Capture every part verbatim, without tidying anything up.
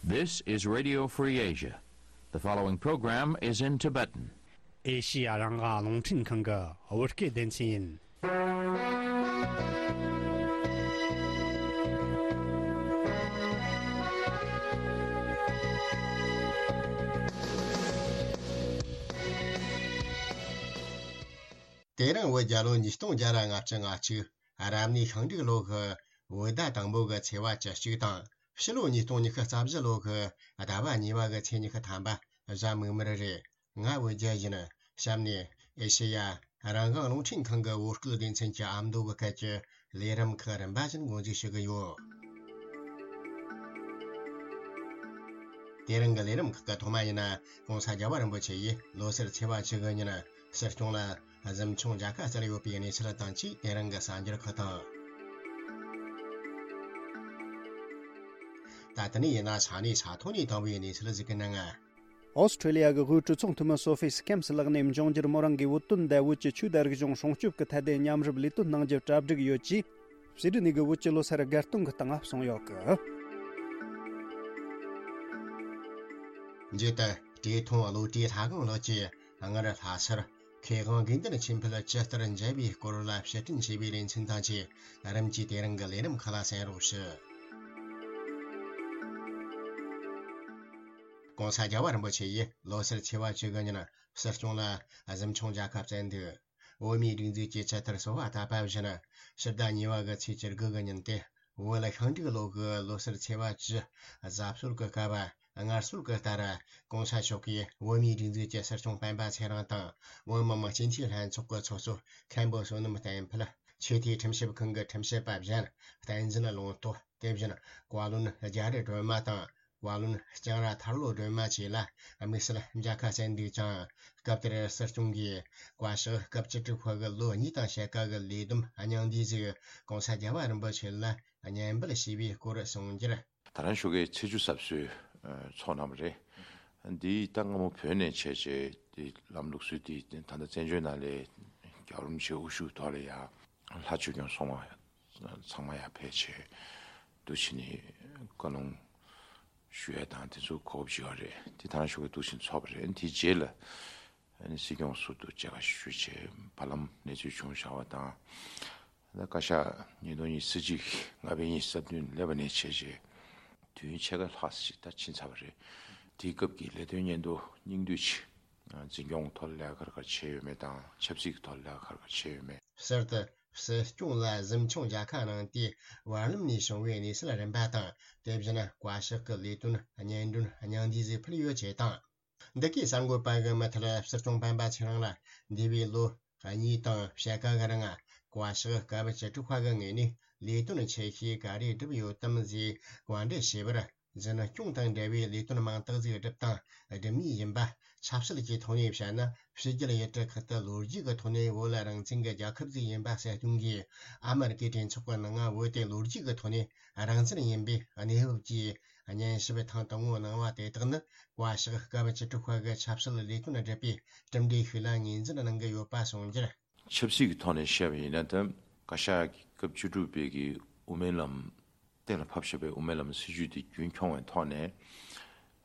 This is Radio Free Asia. The following program is in Tibetan. ཨེ་ཤི་ཡ་རང་དབང་རླུང་འཕྲིན་ཁང་གི་བོད་སྐད་སྡེ་ཚན་ཡིན། དེ་རིང་བོད་རྒྱལ་ལོ་ཉིས་སྟོང་བརྒྱ་ལྔ་བཅུ་ང་གཅིག་རབ་གནས་ཤིང་འབྲུག་ལོ་གི་བོད་ཟླ་དང་པོ་གི་ཚེས་པ་བཅུ་གཅིག་དང་། ཕྱི་ལོ་ཉིས་སྟོང་ཉི་ཤུ་རྩ་བཞི་ལོ་གི་ཟླ་བ་གཉིས་པ་གི་ཚེས་ཉི་ཤུ་ཐམ་པ་གཟའ་མིག་དམར་རེད། ང་བོད་རྒྱལ་ཡིན། གཤམ་ནས་ཨེ་ཤེ་ཡ་རང་དབང་རླུང་འཕྲིན་ཁང་གི་བོད་སྐད་སྡེ་ཚན་གྱི་ཨ་མདོ་གི་སྐད་ཀྱི་ལས་རིམ་ཁག་རིམ་པ་བཞིན་འགོ་འཛུགས་ཞུ་གི་ཡོད། དེ་རིང་གི་ལས་རིམ་ཁག་གི་ཐོག་མ་ཡིན་ན། ༸གོང་ས་རྒྱལ་བ་རིན་པོ་ཆེ་ཡིས་ལོ་སར་ཚེས་པ་བཅུ་དགུ་ཉིན་སྲིད་སྐྱོང་ལ་གཟིམ་ཆུང་མཇལ་ཁ་བསྩལ་ཡོད་པའི་གནས་ཚུལ་དང་བཅས། དེ་རིང་གི་གསར་འགྱུར་ཁག་དང་། ད་ལྟ་ནས་ཡིན་ན་ས་གནས་ས་ཐོག་ནས་དང་བའི་གནས་ཚུལ་ཞིག་གི་ནང་། ཨོ་སི་ཁྲེ་ལི་ཡ་གི་དབུས་གྲོས་ཚོགས་འཐུས་མི་སོ་ཕི་སི་ཁེམ་སི་ལགས་ནས་འབྱུང་འགྱུར་མོ་རང་གིས་བོད་དོན་དང་བོད་ཀྱི་ཆོས་དང་རིག་གཞུང་སྲུང་སྐྱོབ་ཀྱི་ཐད་དེ་མཉམ་རུབ་ལས་དོན་གནང་རྒྱུ་གྲ་སྒྲིག་ཡོད་ཅེས། ཕྱི་དྲིལ་ནས་གི་བོད་ཀྱི་ལོ་སར་དགའ་སྟོན་གྱི་སྟེང་ང་གསུངས་ཡོད་གི། མཇུག་ཏུ་བཀྲས་མཐོང་བློ་གྲོས་ལྷ་སྒང་ལགས་ཀྱིས་སྔར་ལྷ་སར་མཁས་དབང་དགེ་འདུན་ཆོས་འཕེལ་ཇི་ལྟར་མཇལ་བའི་སྐོར་ལ་ཕྱིར་དྲན་བྱས་པའི་ལེ་ཚན་དང་བཅས། རིམ་གྱིས་དེ་རིང་གི་ལས་རིམ་ཁག་ལ་གསན་རོགས་ཞུ། ༸གོང་ས་རྒྱལ་བ་རིན་པོ་ཆེ་ཡིས་ལོ་སར་ཚེས་པ་བཅུ་དགུ་ཉིན་སྲིད་སྐྱོང་ལ་གཟིམ་ཆུང་མཇལ་ཁ་བསྩལ་འདུག་བོད་མིའི་སྒྲིག་འཛུགས་ཀྱི་ཇི་ལྟར་གསོལ་བ་བཏབ་པ་བཞིན། ཕྱི་ཟླ་གཉིས་པ་གི་ཚེས་བཅུ་དགུ་གི་ཉིན་ཏེ། བོད་ལ་ཤིང་འབྲུག་ལོ་གི་ལོ་སར་ཚེས་པ་བཅུ་གཟའ་སྲོལ་གྱི་སྐབས། སྔར་སྲོལ་གྱི་ལྟར། ༸གོང་ས་མཆོག་གིས་བོད་མིའི་སྒྲིག་འཛུགས་ཀྱི་སྲིད་སྐྱོང་སྤེན་པ་ཚེ་རིང་དང་། བོད་མི་མང་སྤྱི་འཐུས་ལྷན་ཚོགས་ཀྱི་ཚོགས་གཙོ་མཁན་པོ་བསོད་ནམས་བསྟན་འཕེལ། ཆོས་དད་ཁྲིམས་ཞིབ་ཁང་གི་ཁྲིམས་ཞིབ་པ་གཞན། བསྟན་འཛིན་ལུང་རྟོགས། དེ་བཞིན་བཀའ་བློན་རྒྱ་རི་སྒྲོལ་མ་དང་། བཀའ་བློན་ལྕང་ར་ཐར་ལོ་སྒྲོལ་མ་བཅས་ལ་དམིགས་བསལ་མཇལ་ཁ་བསྩལ་འདུག་ཅིང་། སྐབས་དེར་སྲིད་སྐྱོང་གིས་བཀའ་ཤག་སྐབས་བཅུ་དྲུག་པ་གི་ལོ་གཉིས་དང་ཕྱེད་ཀ་གི་ལས་བསྡོམས་སྙིང་བསྡུས་ཟིག ༸གོང་ས་རྒྱལ་བ་རིན་པོ་ཆེ་ལ་སྙན་འབུལ་ཞུས་པའི་སྐོར་གསུངས་རྒྱུར། ད་རང་ཞོགས་ཀས་ཚེས་བཅུ་གཟབ་གསོལ་ཚོགས་གནང་བ་རེད། འདི་ད་སྔ་མོ་བོད་ནས་བྱས་རྗེས་དེ་ལམ་ལུགས་སྲོལ་དེ་ད་ལྟ་བཙན་བྱོལ་ནང་ལས་རྒྱལ་བ་རིན་པོ་ཆེ་དབུ་བཞུགས་ཐོག་ལ་ཡ་ལྷ་ཆོས་སྐྱོང་སྲུང་མ་ཚང་མ་ཡར་ཕེབས་བྱས་འདུག་བྱས་ནས་བཀའ་ལུང་ཞུ་ཡས་དང་དེ་ཚོ་གོ་སྐབས་ཅིག་ཡོད་རེད། དེ་ད་རང་ཞོགས་ཀས་འདུག་བྱས་ཚོགས་པ་རེད། དེའི་རྗེས་ལ་ཨ་ནི་སྲིད་སྐྱོང་ཟུར་དུ་མཇལ་ཁ་ཞུས་བྱས་བར་ལམ་གནས་ཚུལ་བྱུང་བཞག་པ་དང་། ད་བཀའ་ཤག་ཉིས་སྟོང་ཉི་ཤུ་རྩ་གཅིག་ལྔ་པའི་ཉིན་སྲིད་དོན་སླེབས་པ་ནས་བྱས་རྗེས་དུས་ཡུན་ཕྱེད་ཀ་ལྷག་ཅིག་ད་ཕྱིན་ཚར་བ་རེད། དེའི་སྐབས་ཀྱི་ལས་དོན་སྙིང་བསྡུས་སྙིང་བསྡུས་ཅིག་འཛིན་སྐྱོང་ཐོག་ལས་ཀ་ག་རེ་ག་རེ་བྱས་ཡོད་མེད་དང་ཆབ་སྲིད་ཀྱི་ཐོག་ལས་ཀ་ག་རེ་ག་རེ་བྱས་ཡོད་མེད། གསར་དུ་སྲིད་སྐྱོང་ལ་གཟིམ་ཆུང་མཇལ་ཁ་གནང་སྟེ་བར་ལམ་ནས་བྱུང་བའི་གནས་ཚུལ་རིམ་པ་དང་། དེ་བཞིན་བཀའ་ཤག་གི་ལས་དོན་སྙན་སྒྲོན་སྙིང་བསྡུས་ཟིག་ཕུལ་ཡོད་ཅེས་དང་། འདི་གའི་གསར་འགོད་པ་གི་མུ་མཐུད་སྲིད་སྐྱོང་སྤེན་པ་ཚེ་རིང་ལ་འདས་པའི་ལོ་གཉིས་དང་ཕྱེད་ཀ་གི་རིང་བཀའ་ཤག་སྐབས་བཅུ་དྲུག་པ་གི་ངོས་ནས་ལས་དོན་ཆེ་ཤོས་ག་རེ་བསྒྲུབས་ཡོད་དམ་ཞེས་བཀའ་འདྲི་བྱས་པར། འཛིན་སྐྱོང་དང་འབྲེལ་བའི་ལས་དོན་མང་དག་ཞིག་བསྒྲུབས་དང་སྒྲུབ་མུས་ཡིན་པ། ཆབ་སྲིད་ཀྱི་ཐོག་ནས་བཤད་ན་ཕྱི་རྒྱལ་ཡུལ་གྲུ་ཁག་ཏུ་ལོ་རྒྱུས་ཀྱི་ཐོག་ནས་བོད་ལ་རང་བཙན་གྱི་རྒྱལ་ཁབ་ཞིག་ཡིན་པ་གསལ་སྟོན་གྱིས། ཨ་མེ་རི་ཀའི་གྲོས་ཚོགས་ཀྱི་ནང་བོད་དེ་ལོ་རྒྱུས་ཀྱི་ཐོག་ནས་རང་བཙན་ཡིན་པའི་གནས་བབ་ཀྱི་སྙན་ཞུ་ཐེངས་དང་པོ་གནང་བ་དེ་དག་ནི། བཀའ་ཤག་སྐབས་བཅུ་དྲུག་པ་གི་ཆབ་སྲིད་ལས་དོན་སྒྲུབ་པའི་གྲུབ་འབྲས་ཤིག་ལ་ངོས་འཛིན་གནང་གི་ཡོད་པ་གསུངས་རྒྱུར། ཆབ་སྲིད་ཀྱི་ཐོག་ནས་བཤད་པ་ཡིན་ན་ད་བཀའ་ཤག་གི་སྐབས་བཅུ་དྲུག་པའི་གི་དབུ་མའི་ལམ་གཏན་ལ་ཕབ་བཞག་པའི་དབུ་མའི་ལམ་སྲིད་བྱུས་དེ་རྒྱུན་འཁྱོངས་པའི་ཐོག་ནས།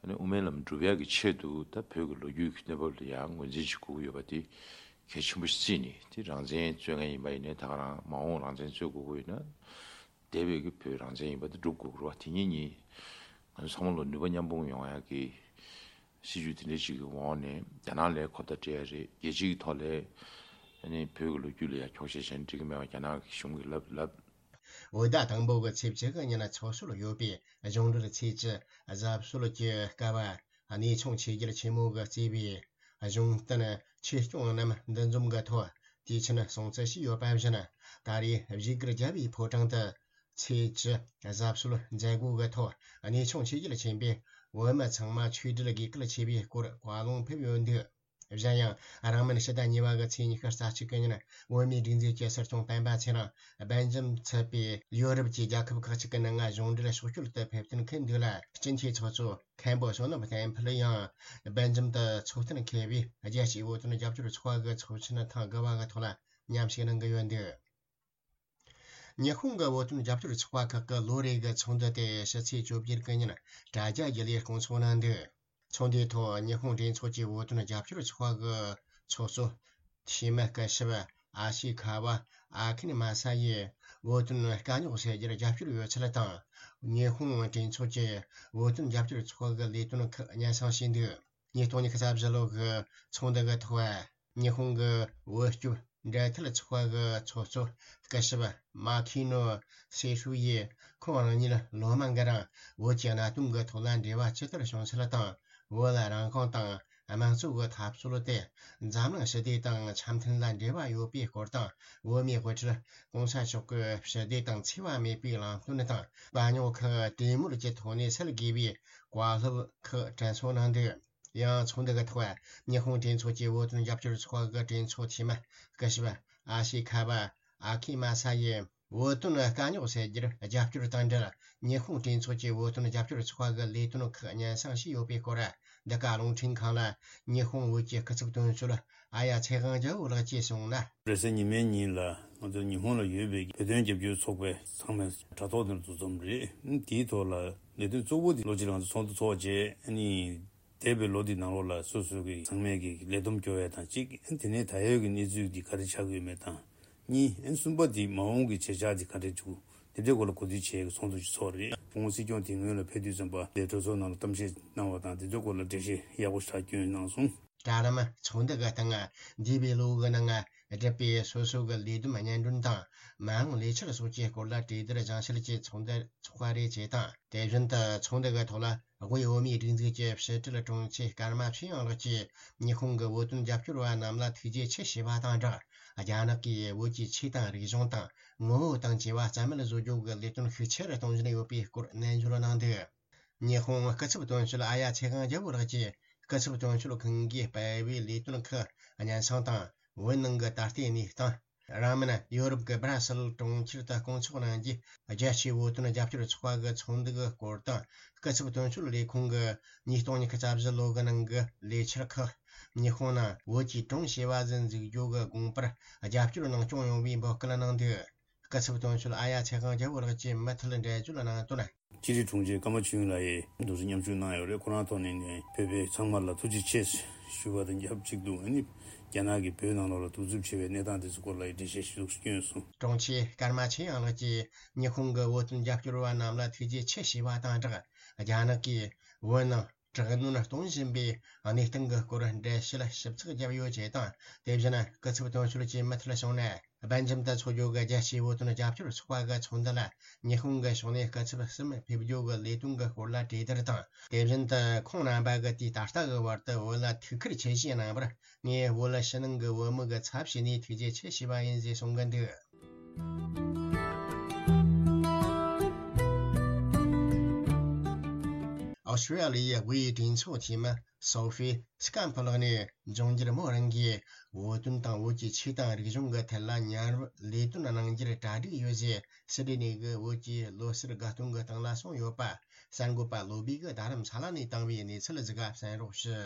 ཨ་ནི་དབུ་མའི་ལམ་སྒྲུབ་ཡག་གི་ཆེད་དུ་ད་བོད་ཀྱི་ལོ་རྒྱུས་ཀྱི་གནས་བབ་ལ་ཡང་ངོས་འཛིན་བྱེད་དགོས་ཀྱི་ཡོད་པ་དེ་གལ་ཆེན་པོ་ཞིག་བརྩིས་ནས། དེ་རང་བཙན་རྩོད་མཁན་ཡིན་པ་ཡིན་ནའི་ད་ག་རང་མ་འོངས་རང་བཙན་རྩོད་དགོས་ཀྱི་ཡོད་ན། འདས་པའི་གི་བོད་རང་བཙན་ཡིན་པ་དེ་སྒྲུབ་དགོས་ཀྱི་རེད་བ། དེ་གཉིས་གཉིས་ང་ཚོ་ཚང་མ་ལ་ནུས་པ་མཉམ་སྤུངས་ཡོང་ཡག་གི་སྲིད་བྱུས་དེ་འདྲ་ཞིག་གི་འོག་ནས་རྒྱ་ནག་ལ་ཁོ་ཐག་སྤྲད་ཡ་རེད། རྒྱལ་སྤྱི་གི་ཐོག་ལ་ཨ་ནི་བོད་ཀྱི་ལོ་རྒྱུས་ལ་ཡ་འཁྱོག་བཤད་བྱས་ན་འགྲིག་གི་མེད་པ་རྒྱ་ནག་གི་གཞུང་གིས་ལབ་ལབ། བོད་ཟླ་དང་པོ་གི་ཚེས་བཅུ་གི་ཉིན་ཚོགས་སྲོལ་ཡོད་པའི་གཞུང་འབྲེལ་ཚེས་བཅུ་གཟབ་གསོལ་གྱི་སྐབས། གནས་ཆུང་ཆོས་རྒྱལ་ཆེན་མོ་གིས་གཙོས་པའི་གཞུང་བསྟེན་ཆོས་སྐྱོང་རྣམས་འདུ་འཛོམས་ཀྱི་ཐོག་དུས་ཆེན་སྲུང་བརྩི་བྱས་ཡོད་པ་བཞིན། ད་རེས་བཞུགས་སྒར་རྒྱལ་བའི་ཕོ་བྲང་དུ་ཚེས་བཅུ་གཟབ་གསོལ་མཛད་སྒོ་གི་ཐོག་གནས་ཆུང་ཆོས་རྒྱལ་ཆེན་པོས་བོད་མི་ཚང་མ་ཆོས་འབྲེལ་དགོས་གལ་ཆེ་བའི་སྐོར་བཀའ་ལུང་ཕེབས་ཡོད་འདུག་གཞན་ཡང་། རིང་མིན་ཕྱི་ཟླ་གཉིས་པ་གི་ཚེས་ཉི་ཤུ་རྩ་གཅིག་གི་ཉིན། བོད་མིའི་སྒྲིག་འཛུགས་ཀྱི་སྲིད་སྐྱོང་སྤེན་པ་ཚེ་རིང་སྦེལ་ཇམ་ཚུད་པའི་ཡོ་རོབ་ཀྱི་རྒྱལ་ཁབ་ཁག་ཅིག་གི་ནང་གཞུང་འབྲེལ་ཕྱོགས་བསྐྱོད་དུ་ཕེབས་ཐོན་མཁན་འདུག་ལ། སྤྱི་འཐུས་ཚོགས་གཙོ་མཁན་པོ་བསོད་ནམས་བསྟན་འཕེལ་ཡང་སྦེལ་ཇམ་དུ་ཚོགས་ཐེངས་མཁས་པའི་རྒྱལ་སྤྱིའི་བོད་དོན་རྒྱབ་སྐྱོར་ཚོགས་པ་གི་ཚོགས་ཆེན་ཐེངས་དགུ་པ་གི་ཐོག་ལ་མཉམ་ཞུགས་གནང་གི་ཡོད་འདུག་ཉི་ཧོང་གི་བོད་དོན་རྒྱབ་སྐྱོར་ཚོགས་པ་ཁག་གི་ལོ་རེ་གི་ཚོགས་འདུ་དེ་ཕྱི་ཚེས་བཅོ་བརྒྱད་གི་ཉིན་དྲ་རྒྱ་བརྒྱུད་ལས་སྐོང་ཚོགས་གནང་འདུག་ཚོགས་འདུའི་ཐོག་ཉི་ཧོང་གྲོས་ཚོགས་ཀྱི་བོད་དོན་རྒྱབ་སྐྱོར་ཚོགས་པ་གི་ཚོགས་གཙོ་འཐུས་མི་སྐུ་ཞབས་ཨ་ཤི་ཁ་བ་ཨ་ཁིན་མ་ས་ཡིས་བོད་དོན་དཀའ་རྙོག་སེལ་རྒྱུར་རྒྱབ་སྐྱོར་ཡོད་ཚུལ་དང་། ཉི་ཧོང་གྲོས་ཚོགས་ཀྱི་བོད་དོན་རྒྱབ་སྐྱོར་ཚོགས་པ་གི་ལས་དོན་ཁག་སྙན་སེང་ཞུས་འདུག་ཉིས་སྟོང་ཉི་ཤུ་རྩ་བཞི་ལོ་གི་ཚོགས་འདུ་གི་ཐོག་ཉི་ཧོང་གི་བོད་སྐྱོབ་འབྲེལ་མཐུད་ཚོགས་པ་གི་ཚོགས་གཙོ་སྐུ་ཞབས་མ་ཁི་ནོ་སེ་ཧྲུའུ་ཡིས་ཁོང་རང་ཉིད་ལོ་མང་གི་རིང་བོད་ཀྱི་གནད་དོན་གྱི་ཐོག་ལ་འབྲེལ་བ་ཇི་ལྟར་བྱུང་ཚུལ་དང་། བོད་ལ་རང་དབང་དང་དམངས་གཙོ་གི་འཐབ་རྩོད་དེ་འཛམ་གླིང་ཞི་བདེ་དང་འཆམ་མཐུན་ལ་འབྲེལ་བ་ཡོད་པའི་སྐོར་དང་། བོད་མིའི་དབུ་ཁྲིད་༸གོང་ས་མཆོག་གི་ཞི་བདེ་དང་འཚེ་བ་མེད་པའི་ལམ་སྟོན་དང་། དཀའ་རྙོག་ཁག་གྲོས་མོལ་གྱི་ཐོག་ནས་སེལ་དགོས་པའི་བཀའ་སློབ་ཁག་དྲན་གསོ་གནང་འདུག་ཡང་ཚོགས་འདུ་གི་ཐོག་ཉི་ཧོང་གྲོས་ཚོགས་ཀྱི་བོད་དོན་རྒྱབ་སྐྱོར་ཚོགས་པ་གི་གྲོས་ཚོགས་འཐུས་མི་སྐུ་ཞབས་ཨ་ཤི་ཁ་བ་ཨ་ཁི་མ་ས་ཡིས་བོད་དོན་དཀའ་རྙོག་སེལ་རྒྱུར་རྒྱབ་སྐྱོར་དང་འབྲེལ། ཉི་ཧོང་གྲོས་ཚོགས་ཀྱི་བོད་དོན་རྒྱབ་སྐྱོར་ཚོགས་པ་གི་ལས་དོན་ཁག་སྙན་སེང་ཞུས་ཡོད་པའི་སྐོར། འདི་ག་རླུང་འཕྲིན་ཁང་ལ་ཉི་ཧོང་བོད་ཀྱི་སྐུ་ཚབ་དོན་གཅོད་ཨ་ཡ་ཚེ་དབང་རྒྱལ་པོ་ལགས་ཀྱིས་གསུངས་ན། རེས་གཟའ་ཉི་མའི་ཉིན་ལ་ང་ཚོ་ཉི་ཧོང་ལ་ཡོད་པའི་བོད་དོན་རྒྱབ་སྐྱོར་ཚོགས་པའི་ཚང་མས་དྲ་ཐོག་ནས་འདུ་འཛོམས་རེད། དེའི་ཐོག་ལ་ལས་དོན་གཙོ་བོ་དེ་ལོ་གཅིག་རིང་ཚོགས་འདུ་ཚོགས་རྗེས་ཨ་ནི། འདས་པའི་ལོ་འདི་ནང་ལོགས་ལ་སོ་སོ་གི་ཚང་མས་ཀྱི་ལས་བསྡོམས་སྐྱོར་བ་དང་གཅིག་དེ་ནས་ད་ཡོད་ཀྱི་གནས་ཚུལ་འདི་ག་རེ་ཆགས་ཀྱི་ཡོད་མེད་དང་། གཉིས། གསུམ་པ་འདི་མ་འོངས་ཀྱི་བྱེད་འཆར་འདི་ག་འདྲས་འཇུག་དེ་འདྲའི་སྐོར་ལ་གོ་བསྡུར་བྱེད་ཀྱི་ཚོགས་འདུ་ཞིག་ཚོགས་རེད། སྐུ་ངོ་སྲིད་སྐྱོང་དེ་སྔོན་ལ་ཕེབས་དུས་ཙམ་པ་དེ་གྲོས་ཚོགས་ནང་ལ་གཏམ་བཤད་གནང་བ་དང་དེ་ཚོའི་སྐོར་ལ་འགྲེལ་བཤད་ཡག་པོ་ཞིག་བསྐྱོན་གནང་སོང་། གྲལ་རིམ་ཚོགས་འདུ་གི་སྟེང་འདས་པའི་ལོ་གི་ནང་བསྒྲུབས་པའི་སོ་སོ་གི་ལས་བསྡོམས་སྙན་སྒྲོན་དང་མ་འོངས་ལས་འཆར་སོགས་ཀྱི་སྐོར་ལ་གྲོས་བསྡུར་སྦྱང་བཤད་ཀྱི་ཚོགས་འདུ་ཚོགས་པ་རེད་ཅེས་དང་། དེ་བཞིན་དུ་ཚོགས་འདུ་གི་ཐོག་ལ། དབུས་བོད་མིའི་སྒྲིག་འཛུགས་ཀྱི་ཕྱི་དྲིལ་དྲུང་ཆེ་ཀརྨ་ཆོས་དབྱངས་ལགས་ཀྱིས་ཉི་ཧོང་གི་བོད་དོན་རྒྱབ་སྐྱོར་བ་རྣམས་ལ་ཐུགས་རྗེ་ཆེ་ཞུས་པ་དང་སྦྲགས། རྒྱ་ནག་གིས་བོད་ཀྱི་ཆོས་དང་རིག་གཞུང་དང་ངོ་བོ་དང་བཅས་པ་རྩ་མེད་བཟོ་རྒྱུ་གི་ལས་དོན་ཤུགས་ཆེ་རུ་གཏོང་བཞིན་ཡོད་པའི་སྐོར་ནན་བརྗོད་གནང་འདུག་ཉི་ཧོང་སྐུ་ཚབ་དོན་གཅོད་ཨ་ཡ་ཚེ་དབང་རྒྱལ་པོ་ལགས་ཀྱིས་སྐུ་ཚབ་དོན་གཅོད་ཁང་གིས་སྤེལ་བའི་ལས་དོན་ཁག་སྙན་སེང་དང་བོད་ནང་གི་ད་ལྟའི་གནས་སྟངས། རིང་མིན་ཡོ་རོབ་ཀྱི་སྦ་ར་སེལ་གྲོང་ཁྱེར་དུ་སྐོང་ཚོགས་གནང་རྒྱུའི་རྒྱལ་སྤྱིའི་བོད་དོན་རྒྱབ་སྐྱོར་ཚོགས་པ་གི་ཚོགས་འདུ་གི་སྐོར་དང་། སྐུ་ཚབ་དོན་གཅོད་ལས་ཁུངས་ཀྱི་ཉིས་སྟོང་ཉི་ཤུ་རྩ་བཞི་ལོ་གི་ནང་གི་ལས་འཆར་ཁག་ཉི་ཧོང་ནང་བོད་ཀྱི་ཀྲུང་ཞི་བ་ཟི་འཛུགས་རྒྱུ་གི་དགོངས་པར་རྒྱབ་སྐྱོར་གནང་སྐྱོང་ཡོང་བའི་འབོད་སྐུལ་གནང་འདུག་སྐུ་ཚབ་དོན་གཅོད་ཨ་ཡ་ཚེ་དབང་རྒྱལ་པོ་ལགས་ཀྱིས་མུ་མཐུད་འགྲེལ་བརྗོད་གནང་དོན། སྤྱི་འཐུས་དྲུང་ཆེ་ཀརྨ་ཆོས་དབྱིངས་ལགས་ཡིས་འདུག་སེ་མཉམ་ཞུགས་གནང་ཡོད་རེད། ཁོ་རང་ཐོག་ནས་ནས་བོད་པའི་ཚང་མ་ལ་ཐུགས་རྗེ་ཆེ་ཞུ་བ་དང་ཆབས་ཅིག་ཏུ། ཨ་ནི་རྒྱ་ནག་གིས་བོད་ནང་ལོགས་ལ་གདུག་རྩུབ་ཆེ་བའི་གནས་སྟངས་དེ་ཚོའི་སྐོར་ལ་འགྲེལ་བཤད་ཞིག་བསྐྱོན་སོང་། དྲུང་ཆེ་ཀརྨ་ཆོས་དབྱངས་ལགས་ཀྱིས་ཉི་ཧོང་གི་བོད་དོན་རྒྱབ་སྐྱོར་བ་རྣམས་ལ་ཐུགས་རྗེ་ཆེ་ཞུས་པ་དང་སྦྲགས། རྒྱ་ནག་གིས་བོད་ནང་དྲག་གནོན་གཏོང་བཞིན་པའི་གནས་སྟངས་ཀྱི་སྐོར་འགྲེལ་བཤད་ཞིབ་ཚགས་བརྒྱབ་ཡོད་ཅེས་དང་། དེ་བཞིན་སྐུ་ཚབ་དོན་གཅོད་ཀྱིས་མུ་མཐུད་གསུངས་ན། སྦེལ་ཇམ་དུ་འཚོགས་རྒྱུ་གི་རྒྱལ་སྤྱིའི་བོད་དོན་རྒྱབ་སྐྱོར་ཚོགས་པ་གི་ཚོགས་འདུ་ལ་ཉི་ཧོང་གི་ཕྱོགས་ནས་སྐུ་ཚབ་གསུམ་ཕེབས་རྒྱུ་གི་ལས་དོན་གྱི་སྐོར་ལ་གྲོས་བསྡུར་དང་། དེ་བཞིན་དུ་ཁོང་རྣམ་པ་གིས་དུས་ད་ལྟ་གི་བར་དུ་བོད་ལ་ཐུགས་ཁུར་ཆེ་བཞེས་གནང་བར་ངས་བོད་ཕྱི་ནང་གི་བོད་མི་གི་ཚབ་བྱས་ནས་ཐུགས་རྗེ་ཆེ་ཞུས་པ་ཡིན་ཞེས་གསུང་གི་འདུག་ཨོ་སི་ཀྲི་ལི་ཡའི་དབུས་གྲོས་ཚོགས་འཐུས་མི་སོ་ཧྥི་སི་ཀམ་ཕུ་ལགས་ནས་འབྱུང་འགྱུར་མོ་རང་གིས་བོད་དོན་དང་བོད་ཀྱི་ཆོས་དང་རིག་གཞུང་གི་ཐད་ལ་མཉམ་རུབ་ལས་དོན་གནང་རྒྱུར་གྲ་སྒྲིག་ཡོད་ཅེས་སི་ཌི་ནི་གི་བོད་ཀྱི་ལོ་གསར་དགའ་སྟོན་གྱི་སྟེང་ལ་གསུངས་ཡོད་པ་གསར་འགོད་པ་བློ་བྷེ་གིས་རྡ་རམ་ས་ལ་ནས་བཏང་བའི་གནས་ཚུལ་ཞིག་གསན་རོགས་ཞུ།